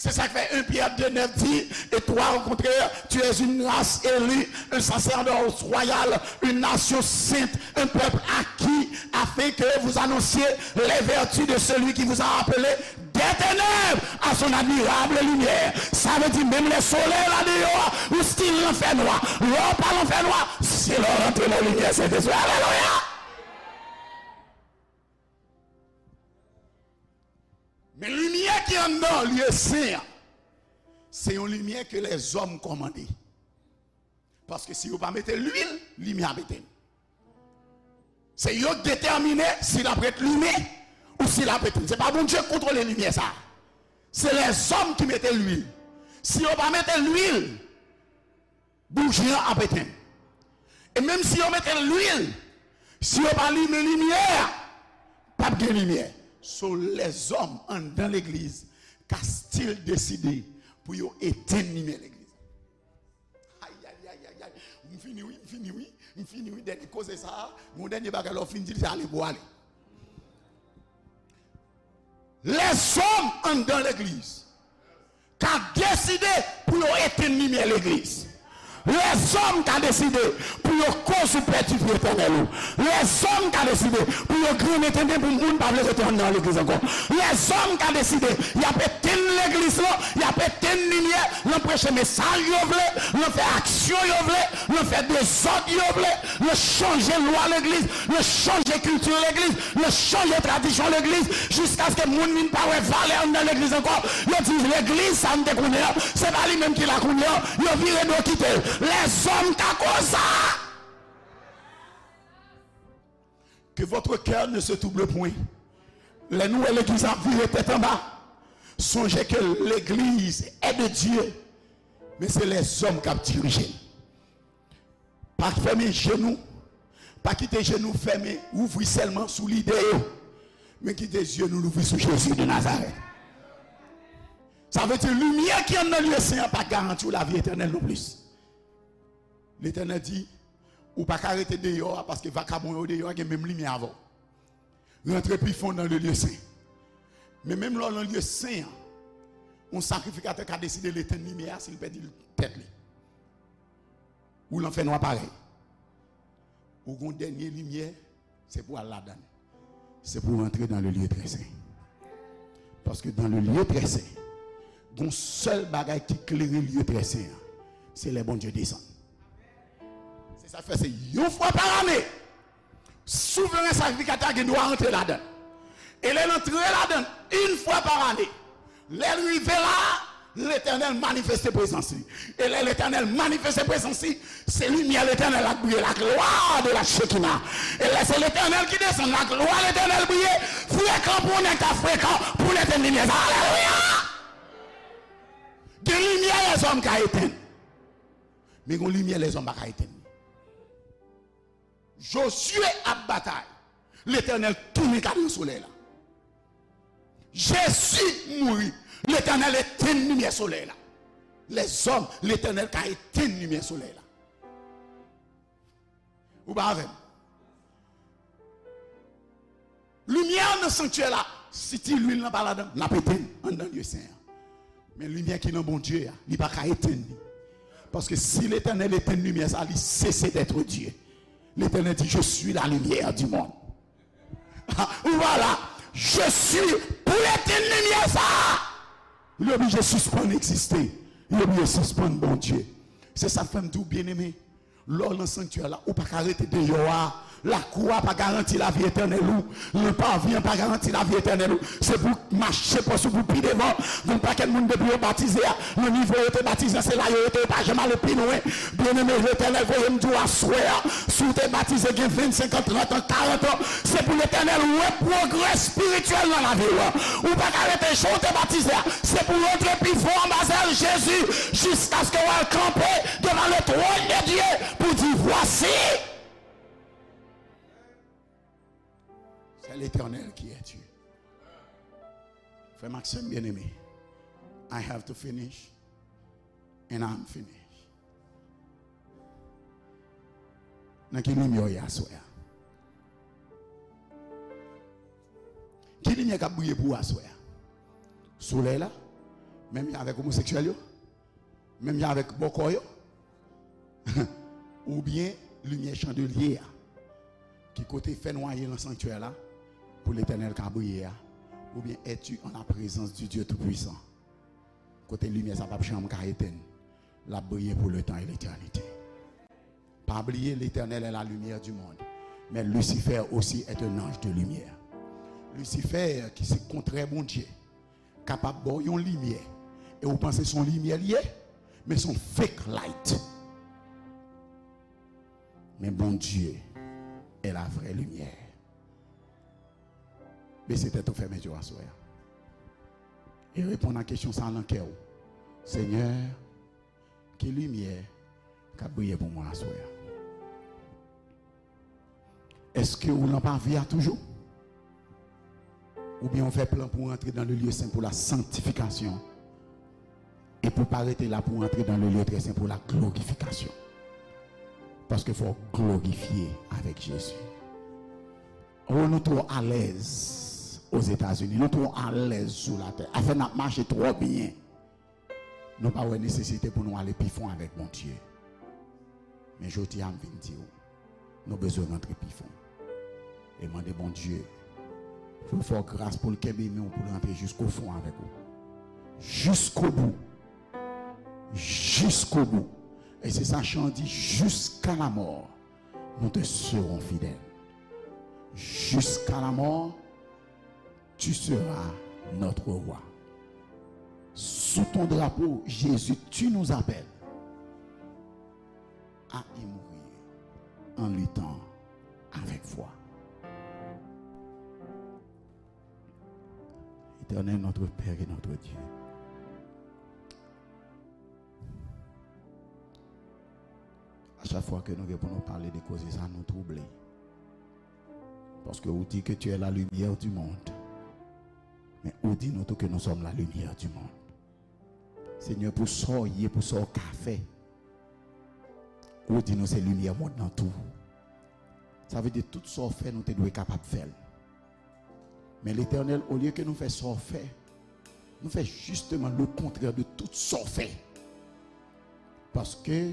Se sa k fè un Pierre deux neuf di, et toi, au contraire, tu es une race élue, un sacerdoce royal, une nation sainte, un peuple acquis, afin que vous annonciez les vertus de celui qui vous a appelé des ténèbres à son admirable lumière. Sa vle di, menm lè solèy la deyò a, ou still nan fènwa. Lè w pa nan fènwa, se lè w rantre nan limyè Sentespri. Alelouya! Men limyè ki anndan lye sen an, se yon limyè ke lèzòm kòmande. Paske si yo pa mete lwil, limyè ap etenn. Se yo k detèmine si l ap ret limen ou si l ap etenn. Se pa Bondye k kontwole limyè sa a. Se lèzòm ki mete lwil. Si yo pa mete lwil, bouji an ap etenn. E menm si yo mete lwil, si yo pa limen limyè a, p ap gen limyè. So, lèzòm anndan legliz ka still deside pou yo etenn limyè legliz. Ay, ay, ay, ay, ay. M fini wi, m fini wi, m fini wi. Dènye koze sa a, yon dènye bagay lè w fin di l, se ale pou w ale. Lèzòm anndan legliz ka deside pou yo etenn limyè legliz. Lèzòm ka deside pou yo koz ou pèdi vi etènèl ou. Lèzòm ka deside pou yo grennen tenten pou moun pa vle rete anndan legliz ankò. Lèzòm ka deside y ap etenn legliz lan, y ap etenn limyè, nan preche mesaj yo vle, nan fè aksyon yo vle, nan fè dezòd yo vle, nan chanje lwa legliz, nan chanje kilti legliz, nan chanje tradisyon legliz, jiskaske moun vin pa wè valè anndan legliz ankò. Yo di legliz sa n te konnen an, se pa li menm ki la kounye an, yo vire do kite l. Lèzòm ka koz sa. Que votre cœur ne se trouble point. Lè nou wè legliz ap vire tèt anba, sonje ke legliz est de Dieu, men se lèzòm k ap dirije l. Pa fèmen je nou, pa kite je nou fèmen, ouvri sèlman sou lide yo, men kite zye nou louvri sou Jezi de Nazarèt. Sa vle di limyè ki anndan lye sen an pa garanti w lavi etènèl non plis. Letènèl di, ou pa ka rete deyò a, paske vakabon yo deyò a gen menm limyè avè w. Rantre pi fon nan le lye sen. Men menm lè w nan lye sen an, yon sakrifikatè ka deside l etenn limyè a si l pèdi tèt li. Ou nan fènwa parèy. Ou gon dènye limyè, se pou al ladan l. Se pou w rantre dans le lieu très saint. Paske dans le lieu très saint, gon sèl bagay ki klere lieu très saint an, se lè Bondye desann. Se sa k fè se yon fwa pa lane, souvren sakrifikatè a gen dwa rantre ladan l. E lè l antre ladan l, yon fwa pa lane, lè l rive la, Letènèl manifeste prezans li. E lè Letènèl manifeste prezans li, se limyè Letènèl la k briye, la gloire de la Shekinah. E lè se Letènèl ki desann, la gloire Letènèl briye, frekan pou nèg ta frekan pou l etenn limyè sa. Alelouya! Gen limyè lèzòm ka etenn, men gon limyè lèzòm pa ka etenn. Jozye ap batay. Letènèl tounen kadran solèy la. Jezi mouri. Letènèl etenn limyè solèy la. Lèzòm, Letènèl ka etenn limyè solèy la. Ou pa avè m? Limyè nan sanktyè la, si ti lwil nan pa ladan, n ap etenn anndan lye sen an. Men limyè ki nan Bondye a, li pa ka etenn li. Paske si Letènèl etenn limyè sa, li sese d'être Dieu. Letènèl di, je suis la lumière du monde. Ou pa la, je suis, pou l etenn limyè sa, li oblije sispann egziste. Li oblije sispann Bondye. Se sa k fè m di w, byeneme, lè w nan sanktyè la, ou pa ka rete deyò a. Lakou a pa garanti lavi etènèl ou. Nan pavi an pa garanti lavi etènèl ou. Se pou w mache pòs ou pou pi devan. Gon pakèt moun depi yo batize a, nan nivo yo te batize a, se la yo rete, yo pa janm ale pi lwen. Byeneme, Letènèl voye m di w aswè a, si w te batize gen ven, senkant, trant an, karant an, se pou Letènèl wè pwogrè espirityèl nan lavi w. Ou pa ka rete jan w te batize a. Se pou w rantre pi fon anba zèl Jezi, jiskaske w al kanpe devan le trône de Dieu pou di, voici, c'est l'Éternel qui est Dieu. Frè m ak sè m byeneme, I have to finish, and I'm finished. Nan ki limyè w ye aswè a? Ki limyè k ap briye pou w aswè a? Solèy la? Menm jan avèk omoseksyèl yo? Menm jan avèk bòkò yo? Oubyen limyè chandelye a, ki kote fènwa ye nan sanktyè la, pou Letènèl ka briye a? Oubyen es-tu en la présence du Dieu Tout-Puissant, kote limyè sa p ap janm ka etenn, l ap briye pour le temps et l'éternité? Pa bliye, Letènèl est la lumière du monde, men Lucifer aussi est un ange de lumière. Lisifè, ki se kontrè Bondye, kapab ba w yon limyè, e ou panse se yon limyè li ye, men se yon fake light. Men Bondye est la vraie lumière. Bese tèt ou, fèmen je w aswè a. E reponn a kesyon sa a nan kè w. Senyè, ki limyè k ap briye pou mwen aswè a? Èske ou nan pavi a toujou? Oubyen ou fè plan pou w antre dans le lieu saint pour la sanctification, e pou w pa rete la, pou w antre dans le lieu très saint pour la glorification? Paske fò w glorifye avèk Jezi. Oh, nou twò alèz Ozetazini, nou twò alèz sou latè. Afè n ap mache twò byen. Nou pa wè nesesite pou nou ale pi fon avèk Bondye. Men jodi a, m vin di w, nou bezwen rantre pi fon. E mande Bondye pou l fè w gras, pou l kenbe men w, pou l rantre jiskofon avèk ou. Jiskobou. Jiskobou. E se sa chan an di, jusqu'à la mort, nous te serons fidèles. Jusqu'à la mort, tu seras notre roi. Sous ton drapeau, Jésus, tu nous appelles à y mourir en luttant avec foi. Éternel, notre Père et notre Dieu, a chak fwa ke nou gen pou nou pale de koze sa, nou twouble. Paske ou di ke tu es la lumière du monde. Men ou di nou tou ke nous sommes la lumière du monde. Senyè, pou sa w ye, pou sa w ka fè, ou di nou se limyè mond nan tou. Sa vle di tout sa w fè, nou te dwe kapab fè l. Men Letènèl, olye ke nou fè sa w fè, nou fè jisteman lekontrè de tout sa w fè. Paske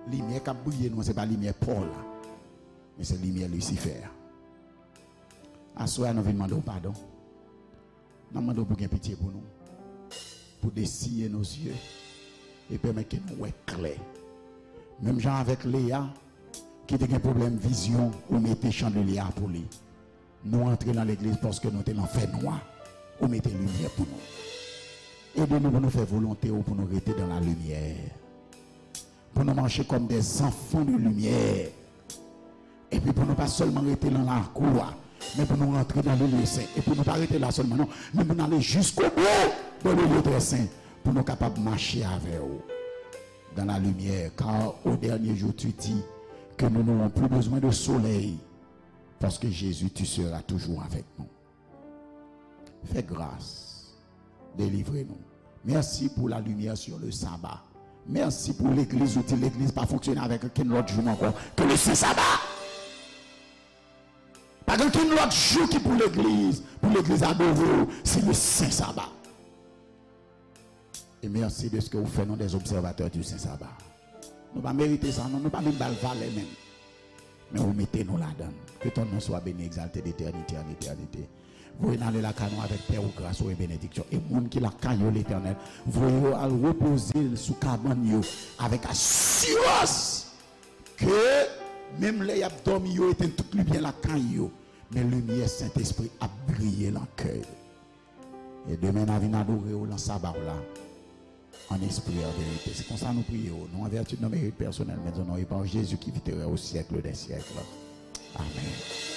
limyè k ap briye nou an, se pa limyè pa w la, men se limyè Lisifè a. Aswè a, nou vin mande w padon. N ap mande w pou gen pitye pou nou, pou dessiller nos yeux e pèmèt ke nou wè klè. Menm jan avèk Leya, ki te gen pwoblèm vizyon, ou mete chandelye a pou li. Nou antre nan legliz paske nou te nan fènwa, ou mete limyè pou nou. Ede nou pou nou fè volonte w, pou nou rete dans la lumière. Pou nou mache comme des enfants de lumière. Epi pou nou pa sèlman rete nan lakou a, men pou nou rantre dans le lieu saint. E pou nou pa rete la sèlman, non, men pou nou ale jusqu'au bout dans le lieu très saint, pou nou kapab mache avè w dans la lumière, car au dernier jour, tu dis que nous n'aurons plus besoin de soleil, parce que Jésus, tu seras toujours avec nous. Fè gras. Delivre nou. Mèsi pou la limyè sur le sabbat. Mèsi pou legliz, ou di legliz pa fonksyone avèk okenn lòt jou ankò ke le sen saba. Pa gen okenn lòt jou ki pou legliz, pou legliz adore w, se le sen saba. E mèsi deske ou fè nou des observateurs du sen saba. Nou pa merite sa, non, nou pa menm ba l valè menm. Men ou mete nou ladan l. Que ton nom soit béni, exalté d'éternité en éternité. Voye n ale lakay nou avèk pè ou, gras ou e benediksyon. E moun ki lakay yo, Letènèl, voye yo al repoze sou kabann yo avèk asirans ke menm lè y ap dòmi, yo etenn tout limyè lakay yo, men limyè Sentespri ap briye nan kè yo. E demen n a vin adore w nan saba w la, en esprit et en vérité. Se konsa nou priye w, non en vertu de nos mérites personnels, mais au nom et par Jésus qui vit et règne au siècle des siècles. Amen.